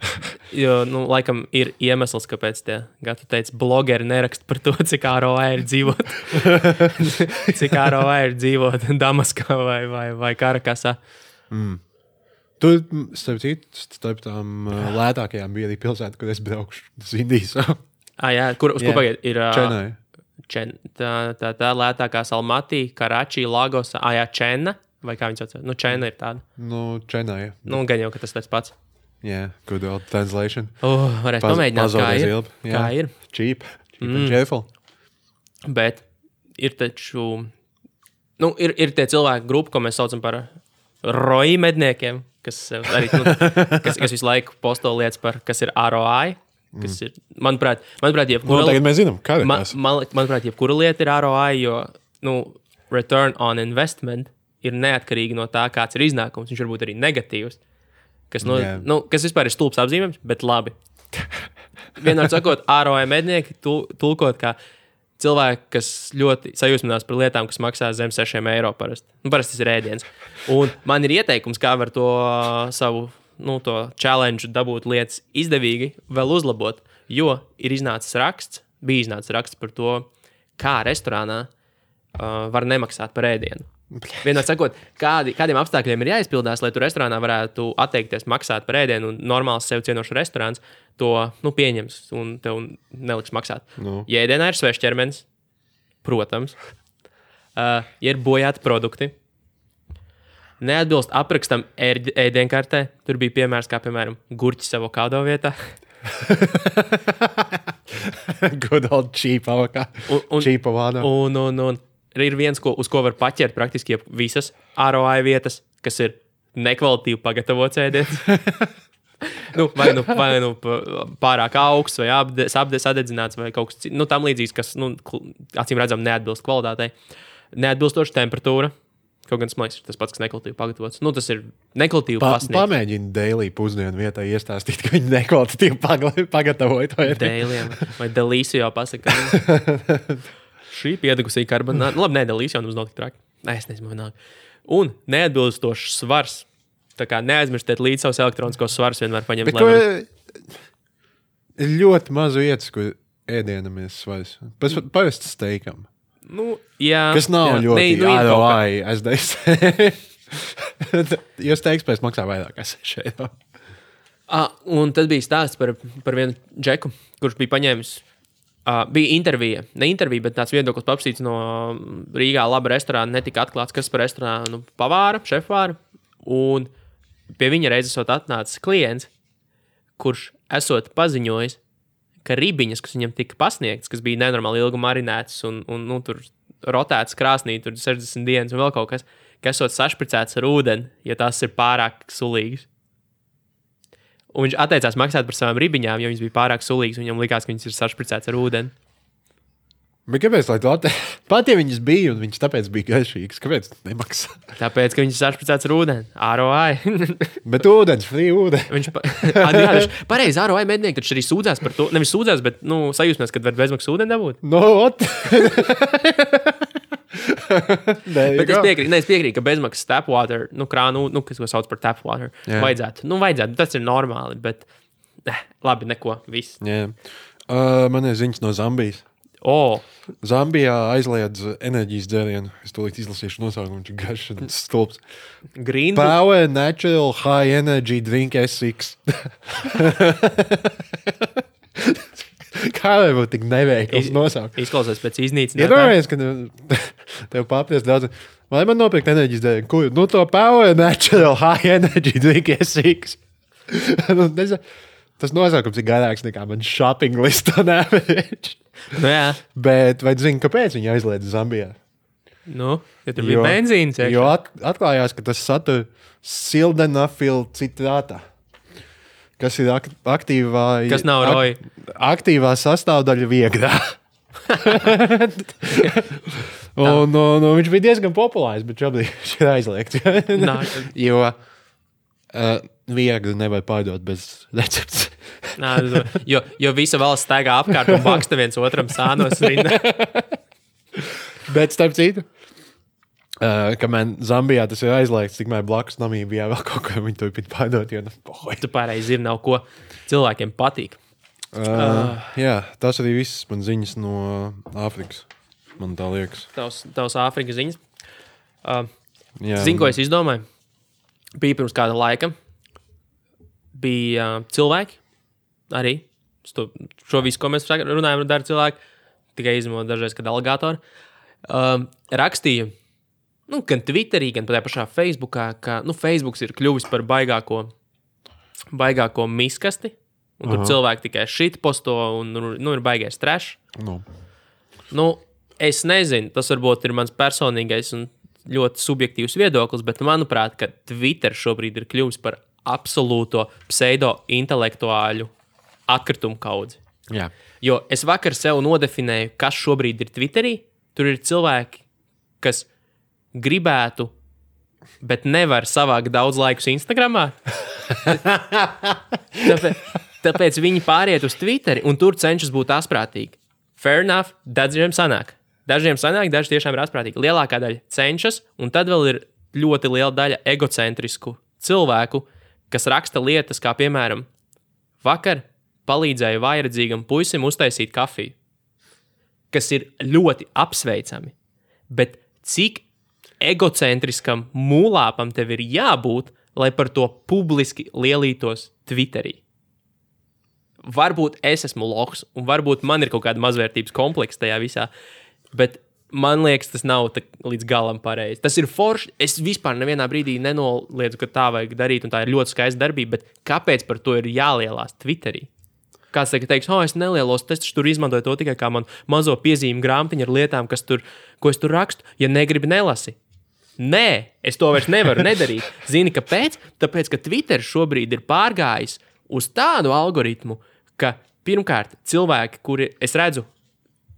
jo, laikam ir iemesls, kāpēc tie, kā tu teici, blogeri neraksta par to, cik ROI ir dzīvot. Cik ROI ir dzīvot Damaskā vai Karakasā. Tur, starp tām lētākajām bija arī pilsēta, kur es braukšu. Tas Indijas. Jā, uz ko pagaiet? Ir Čenai. Tā lētākā Almatī, Karači, Lagos, Čena, vai kā viņi sauc? Čena ir tāda. Čenai. Gan jau, ka tas tāds pats. Yeah, good old translation. Varētu pamēģināt, kā ir. Cheap and cheerful. Bet ir taču, ir tie cilvēki grupa, ko mēs saucam par ROI medniekiem, kas arī, kas visu laiku posto lietas par, kas ir ROI, kas ir, manuprāt, tagad mēs zinām, kā ir tas. Manuprāt, jebkura lieta ir ROI, jo, return on investment ir neatkarīgi no tā, kāds ir iznākums. Viņš var būt arī negatīvs. Kas vispār ir stulbs apzīmējums, bet labi. Vienmēr sakot, ROI mednieki tulkot kā cilvēki, kas ļoti sajūsminās par lietām, kas maksā zem 6 eiro parasti. Parasti tas ir ēdiens. Un man ir ieteikums, kā var to savu to challenge dabūt lietas izdevīgi vēl uzlabot, jo bija iznācis raksts par to, kā restorānā var nemaksāt par ēdienu. Vienmēr sakot, kādiem apstākļiem ir jāizpildās, lai tu restorānā varētu atteikties maksāt par ēdienu, un normāls sev cienošs restorāns to pieņems un tev neliks maksāt. Ja ēdienā ir svešs ķermenis, protams, ja ir bojāti produkti, neatbilst aprakstam ēdienkartē, tur bija piemērs, kā piemēram gurķis avokado vietā. Good old cheap avokado. Cheap avokado. Un ir viens, uz ko var paķert praktiski visas ROI vietas, kas ir nekvalitīvi pagatavots ēdiens. vai pārāk augsts, vai sadedzināts, vai kaut kas cits. Tam līdzīgs, kas, acīm redzam, neatbilst kvalitātei. Neatbilstoša temperatūra. Kaut gan smaiks ir tas pats, kas nekvalitīvi pagatavots. Tas ir nekvalitīvi pasniegts. Pamēģini daily pusdienu vietā iestāstīt, ka viņi nekvalitīvi pagatavoja to ēdienu. Daily, vai delīsio pasaka. Šī piedegusī karbonāta. Labi, nedalīs, jau mums nav tik traki. Es nezinu, vienalga. Un neatbilstošs svars. Tā kā neaizmirstiet līdz savus elektroniskos svarus vienmēr paņemt. Ir ļoti maz vietas, kur ēdienam ir svars. Parasti steikam. Jā. Kas nav ļoti ROI, es teiktu. Jo steiks pēc maksā vairāk, es šeit. Un tad bija stāsts par vienu džeku, kurš bija paņēmis. Bija intervija, ne intervija, bet tāds viedoklis paprasīts no Rīgā laba restorāna, netika atklāts, kas par restorānu pavāra, šefvāra, un pie viņa reizes atnācis klients, kurš esot paziņojis, ka ribiņas, kas viņam tika pasniegts, kas bija nenormāli ilgi marinētas un tur rotētas krāsnī, tur 60 dienas un vēl kaut kas, ka esot sašpricēts ar ūdeni, ja tās ir pārāk sulīgas. Un viņš atteicās maksāt par savām ribiņām, jo viņas bija pārāk sulīgas, un viņam likās, ka viņas ir sašpricēts ar ūdeni. Bet kāpēc, lai tu pat ja viņas bija, un viņas tāpēc bija garšīgas, kāpēc nemaksā? Tāpēc, ka viņas ir sašpricēts ar ūdeni. ROI. Bet ūdens, free ūdeni. Pareizi, ROI mednieki taču arī sūdzās par to. Nevis sūdzās, bet sajūsmēs, kad var bezmaksas ūdeni dabūt. Bet es piekrītu, ka bezmaksas tap water, krānu, kas sauc par tap water, vajadzētu. Vajadzētu, tas ir normāli, bet labi, neko, viss. Yeah. Man ir ziņas no Zambijas. Zambijā aizliedz enerģijas dzērienu. Es tūlīt izlasīšu nosaukumu, viņš ir garš un stulbs. Power Natural High Energy Drink S6. Kā vai būtu tik neveikls nosaukums? Izklausās pēc iznīcinātā. Iedomājies, ka tev papriest daudz. Vai man nopirkt enerģijas dzērienu? Kur? To Power Natural High Energy Drink S6. Tas nosaukums ir garāks nekā man shopping list on average. Jā. Bet vai zini, kāpēc viņi aizliedz Zambijā? Ja tur bija benzīns. Jo atklājās, ka tas satur sildenafil citrātā, kas ir aktīvā... Kas nav ROI? Aktīvā sastāvdaļa viegrā. un viņš bija diezgan populārs, bet šobrīd viņš ir aizliegts. Jo viegli nevar pārdot bez receptes. jo visa valsts staigā apkārt un baksta viens otram sānos rindā. Bet starp citu, kamēr Zambijā tas ir aizliegts, tikmēr blakus Namībijā vēl kaut ko viņi turpina pārdot, jo Tu pareizi ir, nav ko cilvēkiem patīk. Jā, tas arī viss man ziņas no Āfrikas, man tā liekas. Tavs Āfrikas ziņas. Jā. Zini, ko es izdomāju? Bija pirms kāda laika. Bija cilvēki arī. Šo visu, ko mēs runājam, dara cilvēki. Tikai izmantot dažreiz, kad aligatori. Rakstīja, gan Twitterī, gan tajā pašā Facebookā, ka Facebooks ir kļuvis par baigāko miskasti. Un tur cilvēki tikai shitposto un ir baigais trash. Es nezinu, tas varbūt ir mans personīgais un ļoti subjektīvs viedoklis, bet manuprāt, ka Twitter šobrīd ir kļuvis par absolūto pseido-intelektuāļu atkritumu kaudzi. Jā. Jo es vakar sev nodefinēju, kas šobrīd ir Twitterī. Tur ir cilvēki, kas gribētu, bet nevar savākt daudz laikus Instagramā. Tāpēc viņi pāriet uz Twitteri un tur cenšas būt asprātīgi. Fair enough, dažiem sanāk. Dažiem sanāk, daži tiešām ir asprātīgi. Lielākā daļa cenšas, un tad vēl ir ļoti liela daļa egocentrisku cilvēku, kas raksta lietas, kā piemēram, vakar palīdzēju vājredzīgam puisim uztaisīt kafiju, kas ir ļoti apsveicami. Bet cik egocentriskam mūlāpam tev ir jābūt, lai par to publiski lielītos Twitterī? Varbūt es esmu lohs, un varbūt man ir kaut kāda mazvērtības kompleksa tajā visā, bet man liekas, tas nav līdz galam pareizi. Tas ir forši. Es vispār nevienā brīdī nenoliedzu, ka tā vajag darīt, un tā ir ļoti skaista darbība, bet kāpēc par to ir jālielās Twitterī? Kāds teiks, es nelielos, es tur izmantoju to tikai kā man mazo piezīmu grāmatiņu ar lietām, ko es tur rakstu, ja negribi nelasi. Nē, es to vairs nevaru nedarīt. Zini, kāpēc? Tāpēc, ka Twitter šobrīd ir pārgājis uz tādu algoritmu, ka pirmkārt cilvēki, kuri es redzu,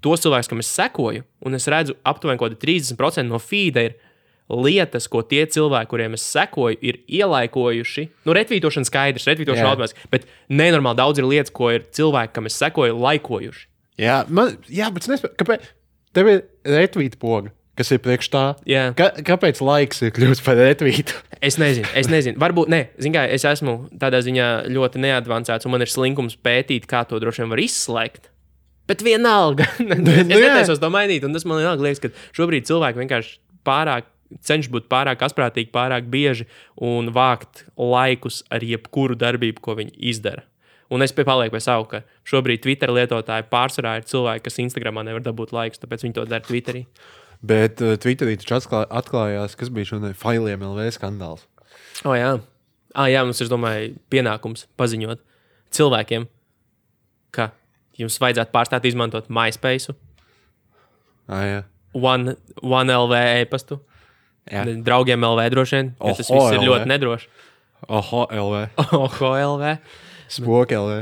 tos cilvēkus, kam es sekoju, un es redzu aptuveni kaut kādi 30% no feeda ir lietas, ko tie cilvēki, kuriem es sekoju, ir ielaikojuši. Retvītošana skaidrs, retvītošana automātiski, bet nenormāli daudz ir lietas, ko ir cilvēki, kam es sekoju, laikojuši. Jā, bet es nespēju, kāpēc tev ir retvīta poga, kas ir priekš tā? Jā. Kāpēc laiks ir kļūst par retvītu? Es nezinu. Varbūt, kā, es esmu tādā ziņā ļoti neadvancēts, un man ir slinkums pētīt, kā to droši vien var izslēgt. Bet vienalga. Es netaisos to mainīt, un tas man liekas, ka šobrīd cilvēki vienkārši cenšas būt pārāk asprātīgi, pārāk bieži un vākt laikus ar jebkuru darbību, ko viņi izdara. Un es palieku pie savu, ka šobrīd Twitter lietotāji pārsvarā ir cilvēki, kas Instagramā nevar dabūt laikus, tāpēc viņi to dara Twitterī. Bet Twitterī taču atklājās, kas bija šodien failiem LV skandāls. Jā. Jā, mums ir, domāju, pienākums paziņot cilvēkiem, ka jums vajadzētu pārstāt izmantot MySpace, Jā. One LV e-pastu, draugiem LV droši vien, jo tas viss ir ļoti nedroši. Oho LV. Spoki LV.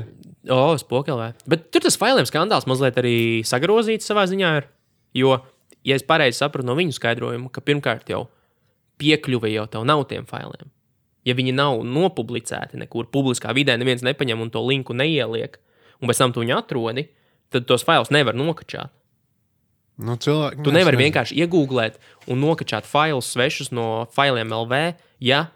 Spoki LV. Bet tur tas failiem skandāls mazliet arī sagrozīts savā ziņā ir, jo, ja es pareizi sapratu no viņu skaidrojumu, ka pirmkārt jau piekļuve jau tev nav tiem failiem. Ja viņi nav nopublicēti nekur publiskā vidē, neviens nepaņem un to linku neieliek, un pēc tam tu viņu atrodi, tad tos failus nevar nokačāt. Tu nevari vienkārši iegūglēt un nokačāt failus svešus no failiem LV, ja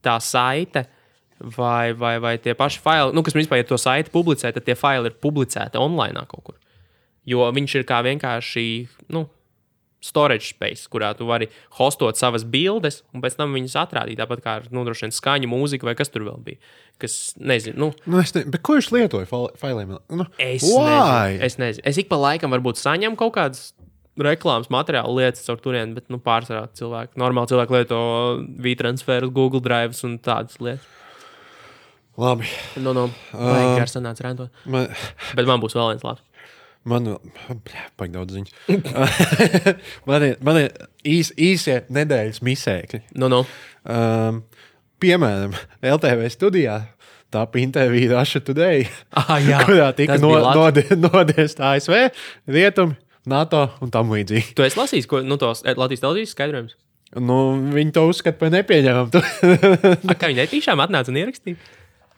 tā saite vai tie paši faili, kas principā, ja to saiti publicē, tad tie faili ir publicēti online kaut kur. Jo viņš ir kā vienkārši, storage space, kurā tu vari hostot savas bildes un pēc tam viņas atrādīt, tāpat kā droši vien skaņu, mūzika vai kas tur vēl bija. Kas, nezinu, Bet ko viņš lietoja failiem? Es nezinu. Es ik pa laikam varbūt saņemu kaut kādas reklāmas materiālu lietas ar turieni, bet pārsvarā cilvēki. Normāli cilvēki lieto V-transferus, Google Drives un tādas lietas. Labi. Vajag gar sanāca rentot. Bet man būs vēl viens labs. Man daudz ziņas. man ir īsie nedēļas misēkļi. Piemēram, LTV studijā tāpa intervija Russia Today, kurā tika nodiest ASV, Rietumi, NATO un tam līdzīgi. Tu esi lasījis tos Latvijas televīzijas skaidrojumus? Nu, viņi to uzskata par nepieņemamu. Kā viņi netīšām atnāca un ierakstīja?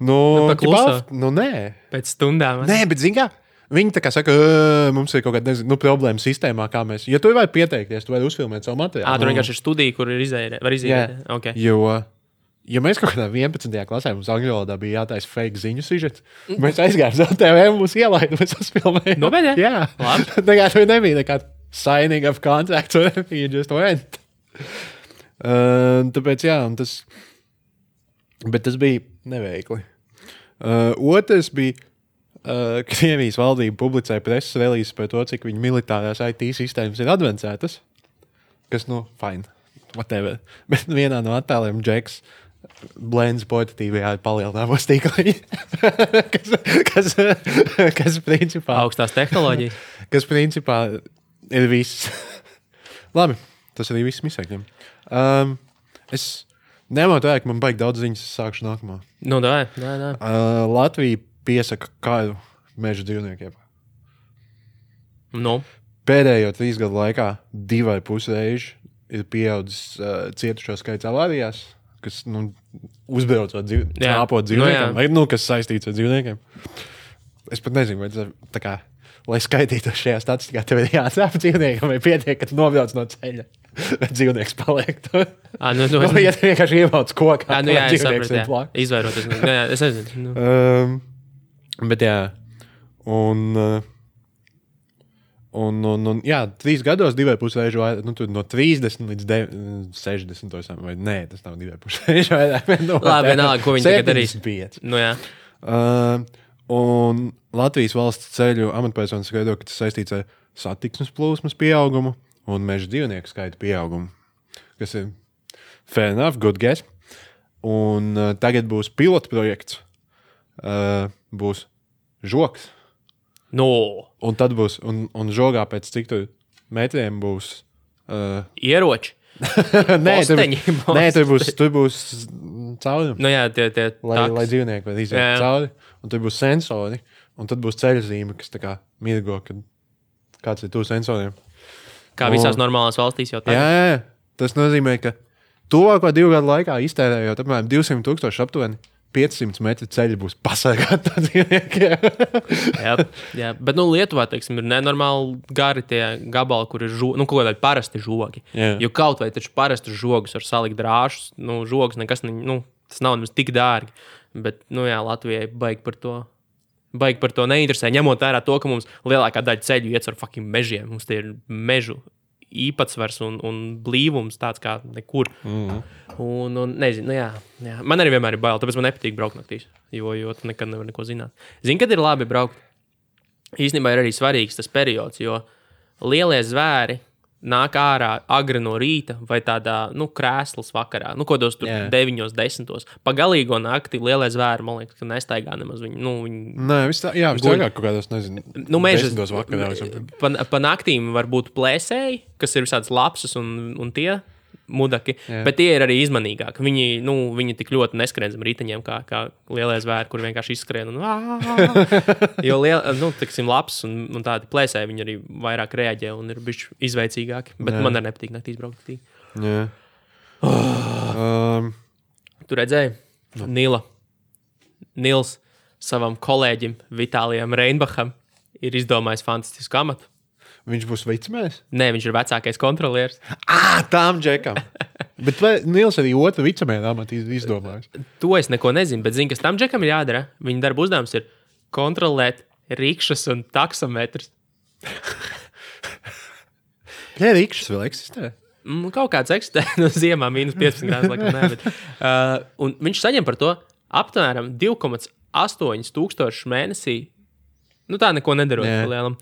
Nē. Pēc stundām. Nē, bet zini kā? Viņi tā kā saka, mums ir kaut kāda problēma sistēmā, kā mēs. Ja tu vari pieteikties, tu vari uzfilmēt savu materiālu. Tur vienkārši ir studija, kur var iziet. Okay. Jo, ja mēs kaut kādā 11. klasē mums angļu valodā bija jātaisa fake ziņu sižets, mēs aizgājām uz TV un mūs ielaida, mēs uzfilmējām. Nobeidē? Jā. Tā kā tur nebija nekāda signing of contract, or you just went. Tāpēc, jā, bet tas bija neveikli. Otrs bija Krievijas valdība publicēja preses relīzes par to, cik viņu militārās IT sistēmas ir advancētas. Kas, fine. Whatever. Bet vienā no attēliem Džeks blends portatīvajā palielinājumos tīkliņi. kas principā... Augstās tehnoloģijas. Kas principā ir viss. Labi, tas arī viss misēkļiem. Es nemotu vērk, man baigi daudz ziņas, es sākšu nākamā. Dai. Latvija piesaka kādu meža dzīvniekiem. Pēdējo 3 gadu laikā 2,5 reizi ir pieaudzis cietušo skaits avārijās, kas uzbraucot āpot dzīvniekiem, vai kas saistīts ar dzīvniekiem. Es pat nezinu, vai tas tā kā, lai skaitītu šajā statistikā, tev ir jāatsāp dzīvniekam, vai pietiek, ka tu nobrauc no ceļa, vai dzīvnieks paliek tur. Ja tu vienkārši ievauc kokā, dzīvnieks ir plāk. Izvairoties. Es nezinu. Bet jā, un 3 gados 2,5 reižu vairāk, no 30 līdz 60, vai nē, tas nav 2,5 reižu vairāk. Labi, vienalga, ko viņi tagad darīs. 75. Jā. Un Latvijas valsts ceļu amatpersonas skaidro, ka tas saistīts ar satiksmes plūsmas pieaugumu un meža dzīvnieku skaita pieaugumu, kas ir fair enough, good guess. Un tagad būs pilotprojekts. Būs žoks. Un tad būs, un žogā pēc cik tur metriem būs... Ieroči. Nē, tur būs caurumi. Tie lai dzīvnieki var iziet cauri. Un tur būs sensori. Un tad būs ceļzīme, kas tā kā mirgo, kad kāds ir tuvu sensoriem. Kā visās normālās valstīs jau tagad. Jā. Tas nozīmē, ka tuvāko 2 gadu laikā iztērējot apmēram 200,000 aptuveni 500 metru ceļi būs pasargāti no dzīvniekiem. jā, bet Lietuvā, teiksim, ir nenormāli gari tie gabali, kur ir kaut kādi parasti žogi. Jo kaut vai taču parasti žogus var salikt drāšus, žogus nekas, tas nav nemaz tik dārgi. Bet, Latvijai baigi par to neinteresē, ņemot vērā to, ka mums lielākā daļa ceļu iet ar fucking mežiem. Mums tie ir mežu īpatsvars un blīvums tāds kā nekur. Un nezinu, jā. Man arī vienmēr ir bail, tāpēc man nepatīk braukt naktīs, jo tu nekad nevar neko zināt. Zini, kad ir labi braukt? Īstenībā ir arī svarīgs tas periods, jo lielie zvēri nāk ārā agri no rīta vai tādā, krēslas vakarā, kodos tur 9, 10. Pa galīgo nakti lielie zvēri, man liekas, ka nestaigā nemaz viņi. Nē, viss tāgāk kaut kādos, nezinu, 10. vakarā. Pa naktīm var būt plēsēji, kas ir visādas lapsas un tie mudaki, bet tie ir arī izmanīgāki. Viņi tik ļoti neskrien zem riteņiem, kā lielie zvēri, kur vienkārši izskrien un jo tiksim, laps un tādi plēsēji, viņi arī vairāk reaģē un ir bišķi izveicīgāki, bet man arī nepatīk naktīs braukt naktī. Tu redzēji? Nils savam kolēģim Vitālijam Reinbacham ir izdomājis fantastisku amatu. Viņš būs vicemēs? Nē, viņš ir vecākais kontrolieris. Tām džekam. Bet Nils arī otru vicemēru amatu izdomājis. To es neko nezinu, bet zinu, kas tam džekam ir jādara. Viņa darba uzdevums ir kontrolēt rikšas un taksometrus. Rikšas vēl eksistē? Kaut kāds eksistē. Ziemā -15 grādus, laikam nē. Bet, un viņš saņem par to aptvēram 2,8 tūkstošus mēnesī. Tā neko nedarot pa lielam.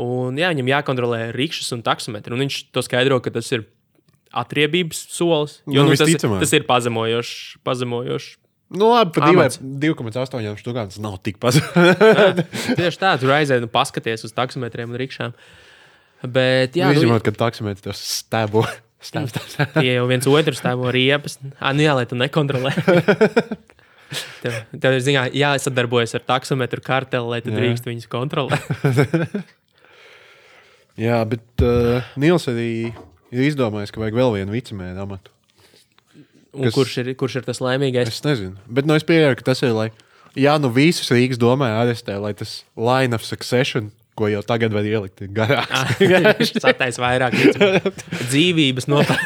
Un viņam jākontrolē rikšas un taksometri. Un viņš to skaidro, ka tas ir atriebības solis. Jo tas ir pazemojošs. Labi, pa 2,8 štukām tas nav tik pazemojoši. Tieši tā, tur aizēj paskaties uz taksometriem un rikšām. Bet, izņemot, ka taksometri tos stēbo. Tie jau viens otru stēbo riepas. Lai tu nekontrolē. Tev ir jāsadarbojas ar taksometru karteli, lai tu drīkst viņus kontrolēt. Jā, bet Nils arī ir izdomājis, ka vajag vēl vienu vicemēru amatu. Un kurš ir tas laimīgais? Es nezinu. Bet es pieņēmu, ka tas ir, lai visus Rīgas domē arestē, lai tas line of succession, ko jau tagad var ielikt, ir garāks. Viņš satais vairāk dzīvības nopērk.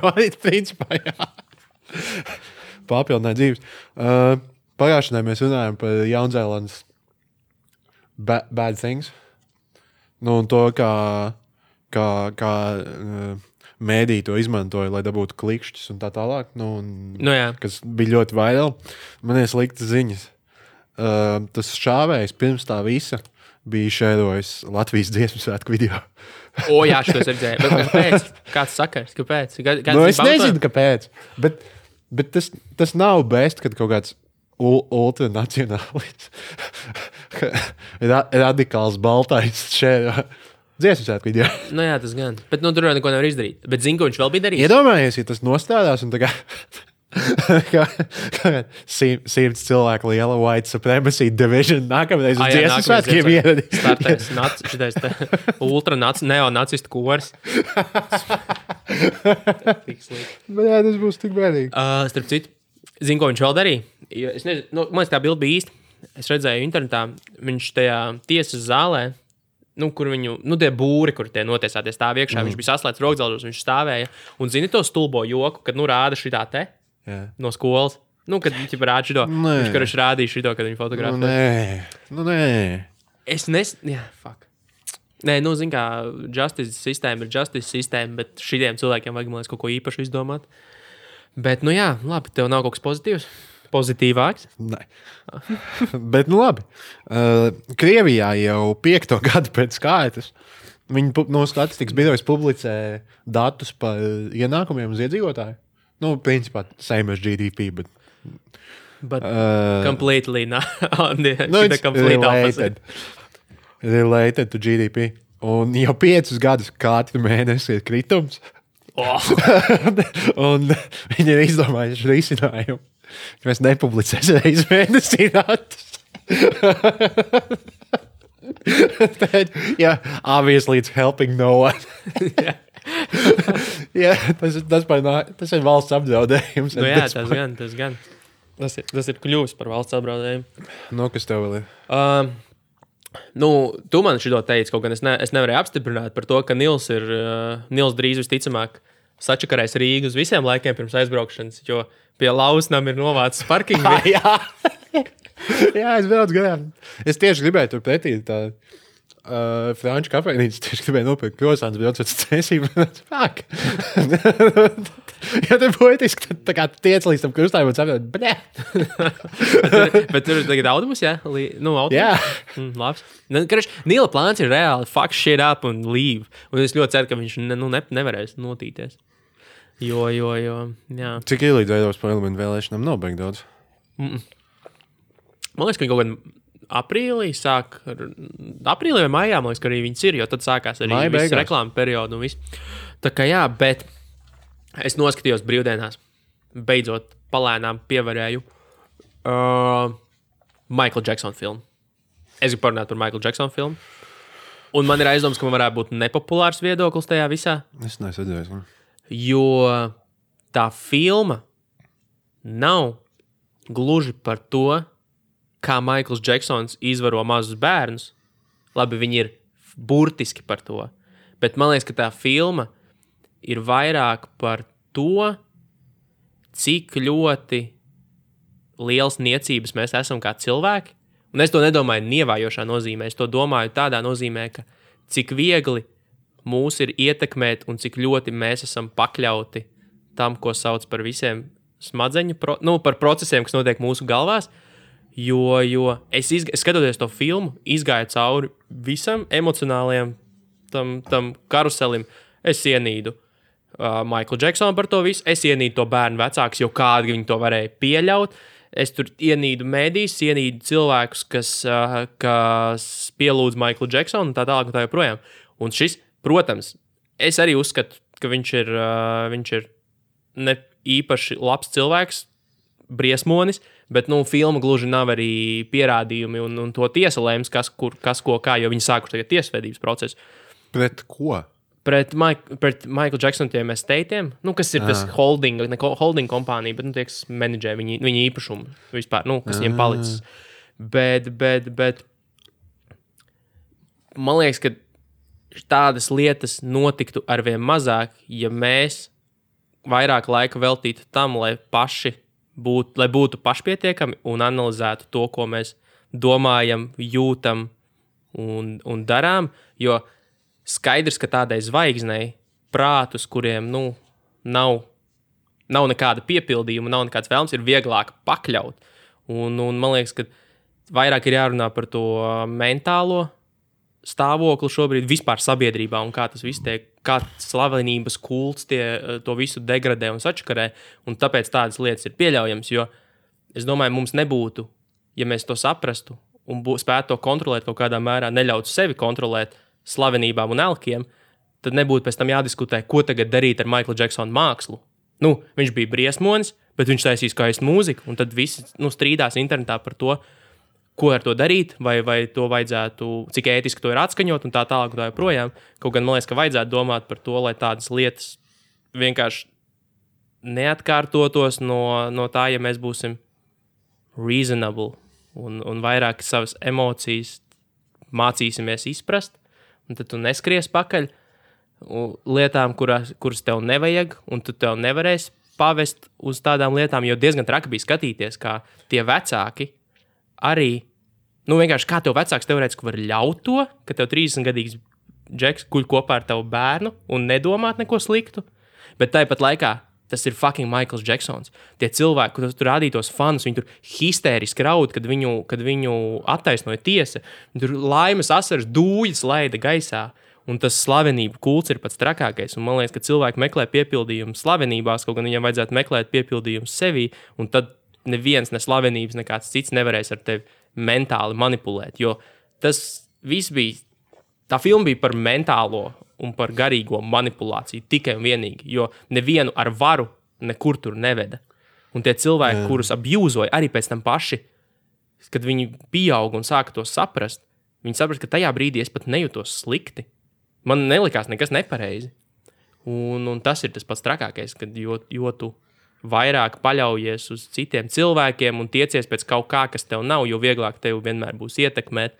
Vai, principā, jā. Papildināt dzīves. Pagājušanai mēs runājam par Jaunzēlandes bad things. Nu, un to, kā mēdī to izmantoja, lai dabūtu klikšķus un tā tālāk. Kas bija ļoti vairāk. Man ir sliktas ziņas. Tas šāvējs pirms tā visa bija šērojis Latvijas dziesmu svētku video. Jā, šitos redzēju. Bet kāpēc? Kāds sakars? Kāpēc? Es nezinu, kāpēc. Bet tas nav best, kad kaut kāds ultranacionālis radikāls baltais šēro dziesmu svētku video. Jā, tas gan. Bet tur jau neko nevar izdarīt. Bet zinu, ko viņš vēl bija darījis. Iedomājies, ja tas nostādās un tā kā 100 cilvēku liela white supremacy division nākamreiz uz dziesmu svētkiem ieradīs. Startais šitais neonacistu kors. Jā, tas būs tik bēdīgi. Starp citu, zinu, ko viņš vēl darīja. Es nezinu, man liekas, tā bilde bija īsta. Es redzēju internetā, viņš tajā tiesas zālē, kur viņu, tie būri, kur tie notiesāties stāv iekšā, viņš bija saslēdz rokdzelžos, viņš stāvēja. Un zini to stulbo joku, kad rāda šitā te? Jā. No skolas. Kad viņi rāda šito. Viņš rādīja šito, kad viņi fotografē. Nē. Es fuck. Nē, zin kā, justice sistēma ir justice sistēma, bet šitiem cilvēkiem vajag, man liekas, kaut ko īpašu izdomāt. Bet, labi, tev nav kaut kas pozitīvs? Pozitīvāks? Nē. Bet, labi. Krievijā jau 5. gadu pēc kārtas viņi no statistikas birojas publicē datus par ienākumiem uz iedzīvotāju. Principā, same as GDP, but completely not on the complete opposite. Related to GDP. Un jau 5 gadus katru mēnesi ir kritums. Un viņi ir izdomājuši risinājumu. Mēs nepublicēsim reiz mēnesī datus. Obviously it's helping no one. Tas ir valsts apdraudējums. Tas gan. Tas ir kļuvis par valsts apdraudējumu. Kas tev vēl ir? Tu man šito teici, kaut gan es nevarēju apstiprināt par to, ka Nils drīz visticamāk sačakarēs Rīgu uz visiem laikiem pirms aizbraukšanas, jo pie Lausnam ir novācis parkingu. Jā, es braucu garām. Es tieši gribēju tur pretī tā franču kafejnīcu, tieši gribēju nopirkt krosāns, braucot uz cēsību. Fuck! Ja te poetiski, tā kā tiec līdz tam krustājumam un saprot, blē! Bet tur ir tagad autobus, jā? Autobus? Jā. Labs. Nila plāns ir reāli fuck shit up un leave. Un es ļoti ceru, ka viņš nevarēs notīties. Jo, jā. Cik ir līdz Eiropas parlamentu vēlēšanām nav baigi daudz? Man liekas, ka viņi kaut gan aprīlī sāk, aprīlī vai maijā, man liekas, ka arī viņas ir, jo tad sākās arī viss reklāma periodu un viss. Tā kā jā, bet es noskatījos brīvdienās, beidzot palēnām pievarēju Michael Jackson filmu. Es gribu parunāt par Michael Jackson filmu. Un man ir aizdoms, ka man varētu būt nepopulārs viedoklis tajā visā. Es nesadzēju. Jo tā filma nav gluži par to, kā Maikls Džeksons izvaro mazus bērnus. Labi, viņi ir burtiski par to. Bet man liekas, ka tā filma ir vairāk par to, cik ļoti liels niecības mēs esam kā cilvēki. Un es to nedomāju nievājošā nozīmē. Es to domāju tādā nozīmē, ka cik viegli mūs ir ietekmēt un cik ļoti mēs esam pakļauti tam, ko sauc par visiem smadzeņu, par procesiem, kas notiek mūsu galvās. Jo es skatoties to filmu, izgāju cauri visam emocionālajam tam karuselim. Es ienīdu Michael Jacksonu par to visu, es ienīdu to bērnu vecākus, jo kādi viņi to varēja pieļaut. Es tur ienīdu mēdīs, ienīdu cilvēkus, kas pielūdz Michael Jacksonu un tā tālāk un tā joprojām. Un šis, protams, es arī uzskatu, ka viņš ir ne īpaši labs cilvēks, briesmonis, bet, filma gluži nav arī pierādījumi un to tiesa lēms, kas ko kā, jo viņi sākuši tagad tiesvedības procesu. Pret ko? Pret Michael Jacksonu tiem estateiem, kas ir tas holding kompānija, bet, tie, kas menedžē viņa īpašumu vispār, kas viņiem palicis. Bet man liekas, ka tādas lietas notiktu arvien mazāk, ja mēs vairāk laika veltītu tam, lai būtu pašpietiekami un analizētu to, ko mēs domājam, jūtam un darām, jo skaidrs, ka tādai zvaigznei prātus, kuriem nav nekāda piepildījuma, nav nekāds vēlms, ir vieglāk pakļaut. Un man liekas, ka vairāk ir jārunā par to mentālo stāvokli šobrīd vispār sabiedrībā un kā tas viss tiek, kā slavenības kults to visu degradē un sačakarē, un tāpēc tādas lietas ir pieļaujams, jo es domāju, mums nebūtu, ja mēs to saprastu un spētu to kontrolēt kaut kādā mērā, neļautu sevi kontrolēt slavenībām un elkiem, tad nebūtu pēc tam jādiskutē, ko tagad darīt ar Michael Jacksonu mākslu. Viņš bija briesmonis, bet viņš taisīs skaistu mūziku, un tad visi strīdās internetā par to, ko ar to darīt, vai to vajadzētu, cik ētiski to ir atskaņot un tā tālāk un tā joprojām. Kaut gan man liekas, ka vajadzētu domāt par to, lai tādas lietas vienkārši neatkārtotos no tā, ja mēs būsim reasonable un vairāk savas emocijas mācīsimies izprast, un tad tu neskries pakaļ lietām, kuras tev nevajag, un tu tev nevarēsi pavest uz tādām lietām, jo diezgan traki bija skatīties, kā tie vecāki arī, vienkārši kā tev vecāks teorētiski var ļaut to, ka tev 30-gadīgs džeks guļ kopā ar tavu bērnu un nedomāt neko sliktu, bet tāpat laikā tas ir fucking Michaels Jacksons. Tie cilvēki, kur tur rādītos fanus, viņi tur histēriski raud, kad viņu attaisnoja tiesa, tur laimes asaras dūļas laida gaisā, un tas slavenību kults ir pats trakākais, un man liekas, ka cilvēki meklē piepildījumu slavenībās, kaut gan viņiem vajadzētu meklēt piepildījumu sevī, un tad neviens, ne slavenības, nekāds cits nevarēs ar tevi mentāli manipulēt, jo tas viss bija, tā filma bija par mentālo un par garīgo manipulāciju tikai un vienīgi, jo nevienu ar varu nekur tur neveda. Un tie cilvēki, kurus abjūzoja, arī pēc tam paši, kad viņi pieauga un sāka to saprast, viņi saprast, ka tajā brīdī es pat nejūtos slikti. Man nelikās nekas nepareizi. Un tas ir tas pats trakākais, kad jo tu vairāk paļaujies uz citiem cilvēkiem un tiecies pēc kaut kā, kas tev nav, jo vieglāk tev vienmēr būs ietekmēt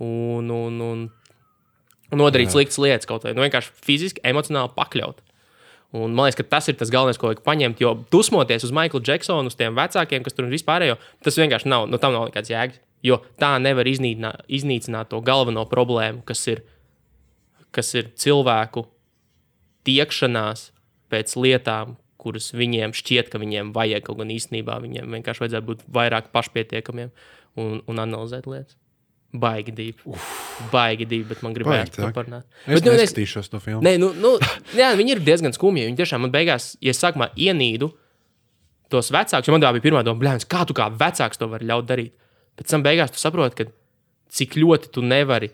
un nodarīt sliktas lietas kaut vai. Vienkārši fiziski, emocionāli pakļaut. Un man liekas, ka tas ir tas galvenais, ko vajag paņemt, jo dusmoties uz Michaelu Jacksonu, uz tiem vecākiem, kas tur vispārējo, tas vienkārši nav, tam nav nekāds jēgas, jo tā nevar iznīcināt to galveno problēmu, kas ir cilvēku tiekšanās pēc lietām, kuras viņiem šķiet, ka viņiem vajag, kaut gan īstenībā viņiem vienkārši vajadzētu būt vairāk pašpietiekamiem un analizēt lietas. Baigi dīvi, bet man gribējās to parunāt. Es neskatīšos to filmu. Jā, viņi ir diezgan skumji. Viņi tiešām man beigās, ja sākumā ienīdu tos vecākus, jo man tā bija pirmā doma, bļāns, kā tu kā vecāks to vari ļaut darīt? Pēc tam beigās tu saproti, ka cik ļoti tu nevari,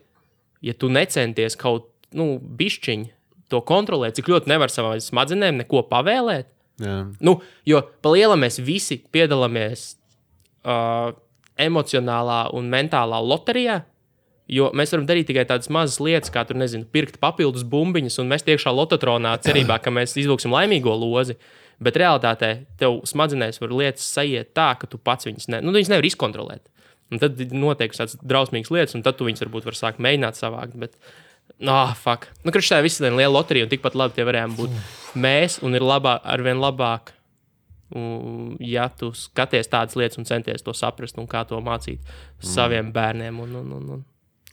ja tu necenties kaut, bišķiņi to kontrolēt, cik ļoti nevar savām smadzenēm neko pavēlēt. Jā. Jo pa lielam mēs visi piedalāmies emocionālā un mentālā loterijā, jo mēs varam darīt tikai tādas mazas lietas, kā tur, pirkt papildus bumbiņas un mest iekšā lototronā cerībā, ka mēs izvilksim laimīgo lozi, bet realitātē tev smadzenēs var lietas sajiet tā, ka tu pats viņas nevar izkontrolēt. Un tad notiek tādas drausmīgas lietas, un tad tu viņas varbūt var sākt mēģināt savākt, bet fuck. Kurš tā viss ir liela loterija, un tikpat labi tie varējām būt mēs, un ir arvien labāk, ja tu skaties tādas lietas un centies to saprast un kā to mācīt saviem bērniem.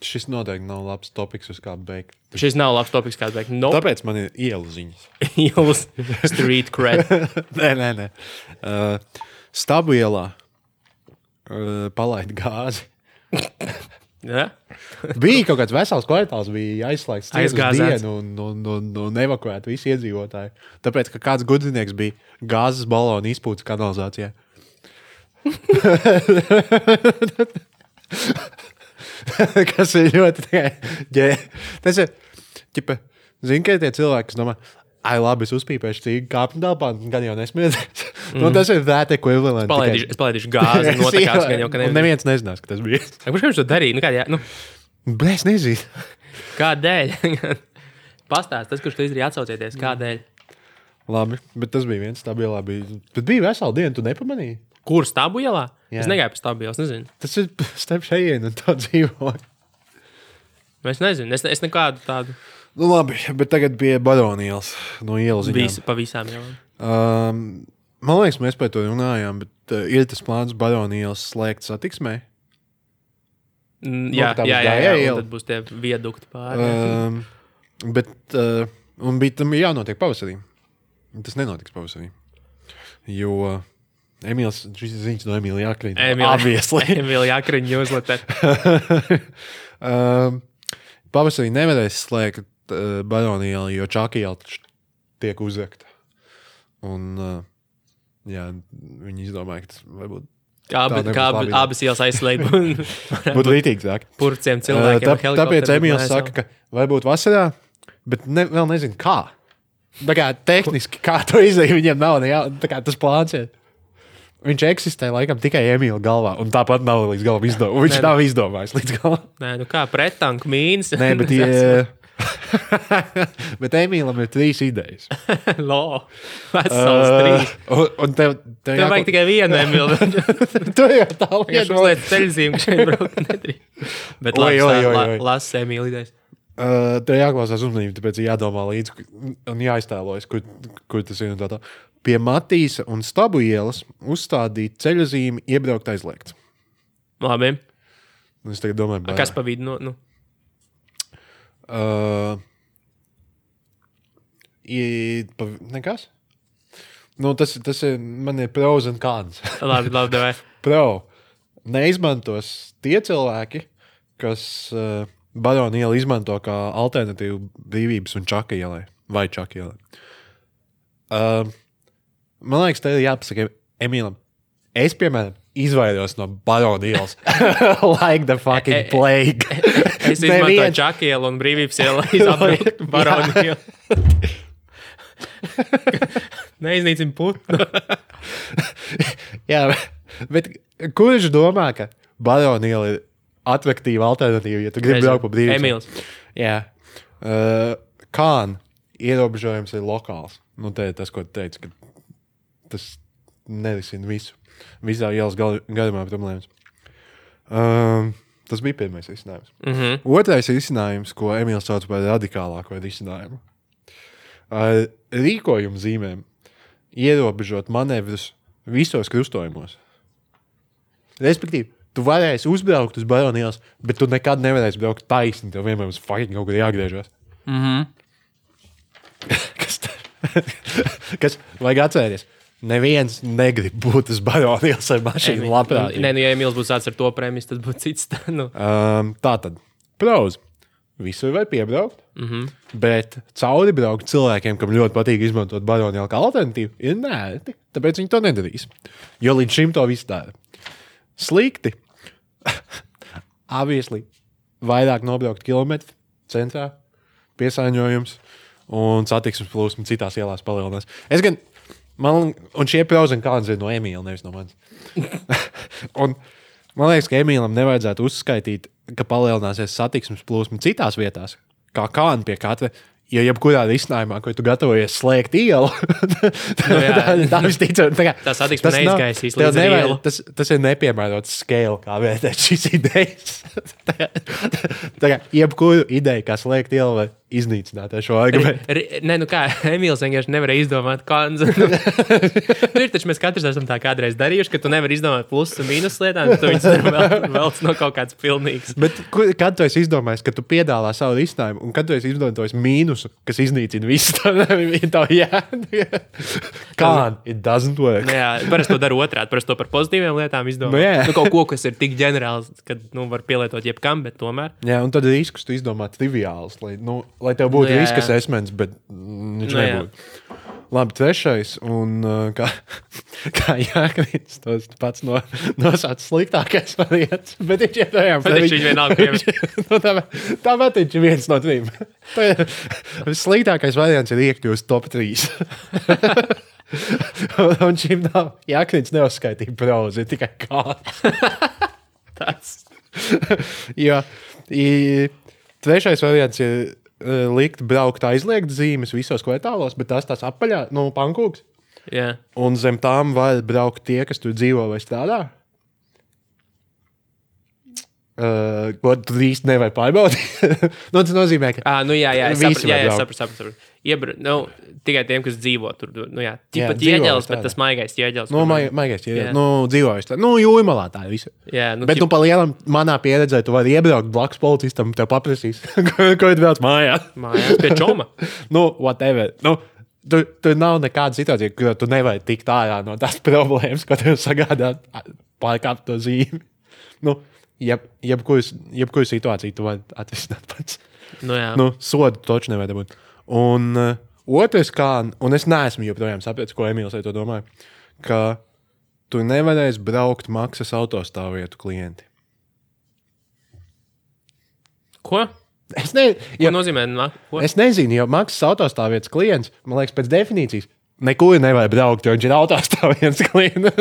Šis noteikti nav labs topiks, uz kādu beigt. Šis nav labs topiks, kādu beigt. Nope. Tāpēc man ir ielu ziņas. Ielas street cred. Nē. Stabu ielā palaid gāzi. Ja? Bija kaut kāds vesels kvartāls, bija aizslēgts dienu un evakuēt visi iedzīvotāji. Tāpēc, ka kāds gudrinieks bija gāzes balonu izpūtas kanalizācijā. Kas ir ļoti tas ir, zini, ka tie cilvēki, kas domā, labi, es uzpīpēšu cīgu kāpņu telpā, gan jau nesmiedzēs. Tas ir that equivalent. Es palaidīšu gāzi, notekās, gan jau, ka neviens. Un neviens nezinās, ka tas bija. Kurš viņš to darīja? Es nezinu. Kādēļ? Pastāst, tas, kurš tu izdarīja, atsaucieties, kādēļ. Labi, bet tas bija viens stabu ielā. Bet bija vesela diena, tu nepamanīji? Kur stabu ielā? Jā. Es negāju pa stabu ielu, es nezinu. Tas ir starp šejienu un tā dzīvoju. Es nezinu, es nekādu tādu. Nu labi, bet tagad pie Baronielas no ielas ziņām. Pa visām ielām. Man liekas, mēs par to runājām, bet ir tas plāns Baronielas slēgt satiksmē? Jā, un tad būs tie viedukti pāri. Un bija tam jānotiek pavasarī. Tas nenotiks pavasarī. Jo šis ir ziņas no Emīla Jākriņa. Emīla Jākriņa newsletter. Pavasarī nevarēs slēgt Baronielu, jo Čakiela tiek uzrakta. Un viņi izdomāja, ka tas varbūt Kā abas ielas aizslēgt. Būtu līdzīgāk. Purciem cilvēkiem. Tāpēc Emīls saka, ka varbūt vasarā, bet vēl nezinu kā. Tā kā tehniski, kā to izdarīt, viņiem nav tā kā tas plāns ir. Viņš eksistē laikam tikai Emīla galvā, un tāpat nav līdz galam izdomājis. Viņš nav izdomājis līdz galam. Nē, nu kā prettanku mīnas. Nē, bet bet Emīlam ir 3 idejas. Vesels 3. Un tev vajag tikai vienu Emīlu. Tu jau tā lieta. Viņš uzliec ceļzīmu, ka šeit braukt nedrīkst. Bet lasa Emīla idejas. Tev jāklausās uzmanību, tāpēc jādomā līdzi un jāiztēlojas, kur tas ir un tā. Pie Matīsa un Stabu ielas uzstādīt ceļzīmi iebraukt aizliegts. Labi. Es tagad domāju, kas pa vidu? Nekas? Tas ir, man ir pros un cons. Labi, davai. Pro. Neizmantos tie cilvēki, kas Baronu ielu izmanto kā alternatīvu Brīvības un Čaka ielai. Vai Čaka ielai. Man liekas, te ir jāpasaka Emīlam. Es, piemēram, izvairos no Baronu ielas. Like the fucking plague. Es izmantoju Čaka ielu un Brīvības ielu izapbraukt Baronu ielu. Neiznīcim putnu. Jā, bet kurš domā, ka Baronu iela ir atraktīva alternatīva, ja tu gribi braukt pa Brīvības? Emīls. Jā. Kān ierobežojums ir lokāls. Nu, te ir tas, ko tu teici, ka tas nerisina visu. Visā ielas garumā problēmas. Tas bija pirmais risinājums. Otrais risinājums, ko Emīls sauc par radikālāko risinājumu. Ar rīkojumu zīmēm ierobežot manevrus visos krustojumos. Respektīvi, tu varēsi uzbraukt uz Baronu ielas, bet tu nekad nevarēsi braukt taisni. Tev vienmēr uz fucking kaut kur jāgriežas. Kas vajag atcerēties? Neviens negrib būt uz Baronu ielas ar mašīnu labprāt. Nē, ja Emīls būtu tāds ar to premijas, tad būtu cits. Tātad, pros. Visur var piebraukt, bet cauri braukt cilvēkiem, kam ļoti patīk izmantot Baronu ielu kā alternatīvu, ir nērti. Tāpēc viņi to nedarīs. Jo līdz šim to viss dara. Slikti. Obviously, vairāk nobraukt kilometru centrā, piesāņojums un satiksmes plūsma citās ielās palielinās. Un šie pros un cons ir no Emīla, nevis no manis. Un man liekas, ka Emīlam nevajadzētu uzskaitīt, ka palielināsies satiksmes plūsma citās vietās, kā kāna pie katra. Jo jebkurā risinājumā, ko tu gatavojies slēgt ielu, tā visticam. Tā satiksme neizgaisīs līdz ielu. Tas ir nepiemērots scale, kā vērtēt šīs idejas. Jebkuru ideju, kā slēgt ielu, var iznīcināt ar šo argumentu. Nē, nu kā, Emīls vienkārši nevarēja izdomāt konzu. Ir taču mēs katrs esam tā kādreiz darījuši, ka tu nevari izdomāt plusus un mīnus lietām, bet tu viņus velc no kaut kāds pilnīgs. Bet kad tu esi izdomājis, ka tu piedāvā savu risinājumu, un kad tu esi izdomājis mīnusu, kas iznīcina visu, it doesn't work. Jā, parasti to dara otrādi, parasti to par pozitīviem lietām izdomā. Kaut ko, kas ir tik ģenerāls, ka var pielietot jebkam, bet tomēr. Jā, un tad riskus tu izdomā triviāls, lai tev būtu riska assessments, bet viņš nebūtu. Labi, trešais, un kā Jākriņš tos pats nosauc sliktākais variants, bet viņš joprojām. Bet viņš vienalga pievies. Tāpēc viņš ir viens no 3. Sliktākais variants ir iekļūst top 3. Un šim nav, Jākriņš neuzskaitīja pros, ir tikai kāds. Tas. Jo, trešais variants ir likt braukt aizliegt zīmes visos kvartālos, bet tās apaļā, pankūks. Jā. Un zem tām var braukt tie, kas tur dzīvo vai strādā. Ko tu īsti nevari pārbaudīt. Tas nozīmē, ka es sapratu. Tikai tiem, kas dzīvo tur. Tāpat ķieģelis, bet tas maigais ķieģelis. Maigais ķieģelis. Dzīvojas tā. Jūrmalā tā ir visa. Bet pa lielam manā pieredzē tu vari iebraukt blakus policistam, tev paprasīs, ko ir brauc mājās. Mājās pie čoma. Whatever. Tur nav nekāda situācija, kur tu nevari tikt ārā no tās problēmas, ko tev sagādā pārkāpt to zīmi. Jebkuru situāciju tu vari atrisināt pats. Sodu toču nevar dabūt. Un otrs, un es neesmu joprojām sapratis, ko Emīls ar to domāja, ka tu nevarēsi braukt maksas autostāvvietu klienti. Ko? Ko nozīmē? Ko? Es nezinu, jo maksas autostāvvietas klients, man liekas, pēc definīcijas, nekur nevar braukt, jo viņš ir autostāvvietas klients.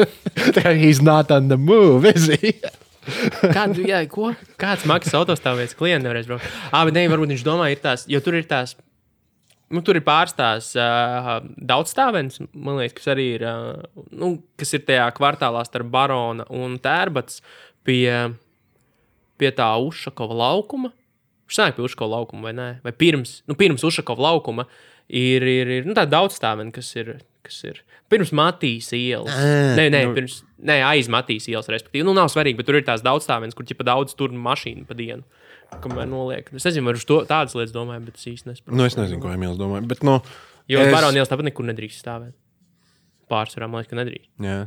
He's not on the move, is he? Ko? Kāds maksas autostāvvietas klients nevarēs braukt? Bet ne, varbūt viņš domā, jo tur ir tās, tur ir pārstās daudzstāvens, man liekas, kas arī ir, kas ir tajā kvartālā starp Barona un Tērbats pie tā Ušakova laukuma. Viņš sanāk pie Ušakova laukuma, vai ne? Vai pirms Ušakova laukuma ir tā daudzstāveni, kas ir pirms Matīs ielas. Aiz Matīs ielas, respektīvi. Nav svarīgi, bet tur ir tās daudzstāvenes, kur ķipa daudz tur mašīnu pa dienu. Kamēr noliek. Es nezinu, vai uz tādas lietas domāju, bet es īsti nesaprotu. Es nezinu, ko Emīls domāju, bet Jo Barona ielas tāpat nekur nedrīkst stāvēt. Pārsvarā, man liekas, ka nedrīkst. Jā,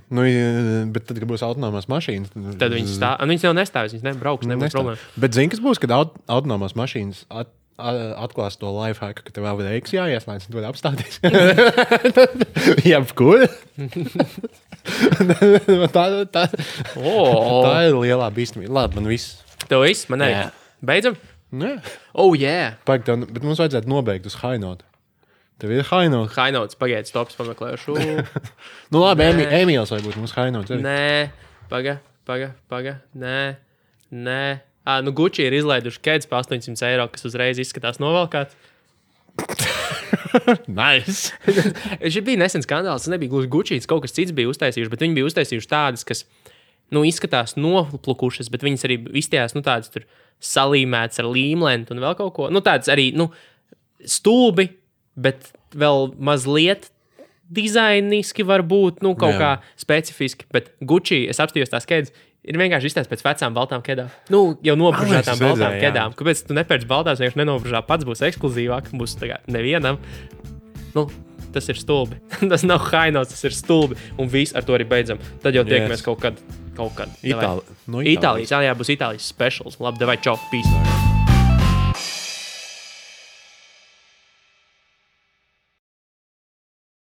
bet tad, kad būs autonomās mašīnas... Tad viņas jau nestāvēs, viņas nebrauks, nebūs problēma. Bet zini, kas būs, kad autonomās mašīnas atklās to lifehacku, ka tev vēl reiks jāieslēdz, un tu vari apstāties. Jebkur. Tā ir lielā bīstamība. Labi, man viss. Tev viss? Man arī. Beidzam? Jā. Bet mums vajadzētu nobeigt uz high note. Tev ir high note. High notes, pagaidiet, stops pameklēšu. Labi, Emīls vai būtu mums high note. Nē, paga. Nē. Gucci ir izlaiduši kēdes pa 800 eiro, kas uzreiz izskatās novalkāts. Nice. Šī bija nesen skandāls, tas nebija gluži Gucci, kaut kas cits bija uztaisījuši, bet viņi bija uztaisījuši tādas, kas, izskatās noplukušas, bet viņas arī izstījās, tādas tur salīmētas ar līmlentu un vēl kaut ko. Tādas arī, stulbi, bet vēl mazliet dizainiski var būt, kaut kā specifiski, bet Gucci, es apstījos tās kēdes, ir vienkārši izstāsts pēc vecām baltām kēdām. Jau nobružātām baltām kēdām. Kāpēc tu nepērci baltās, vienkārši nenobružā, pats būs ekskluzīvāk, būs nevienam. Tas ir stulbi. Tas nav high notes, tas ir stulbi. Un viss ar to arī beidzam. Tad jau tiekamies kaut kad. Itālijas. Būs Itālijas specials. Labi, davai, čau, peace.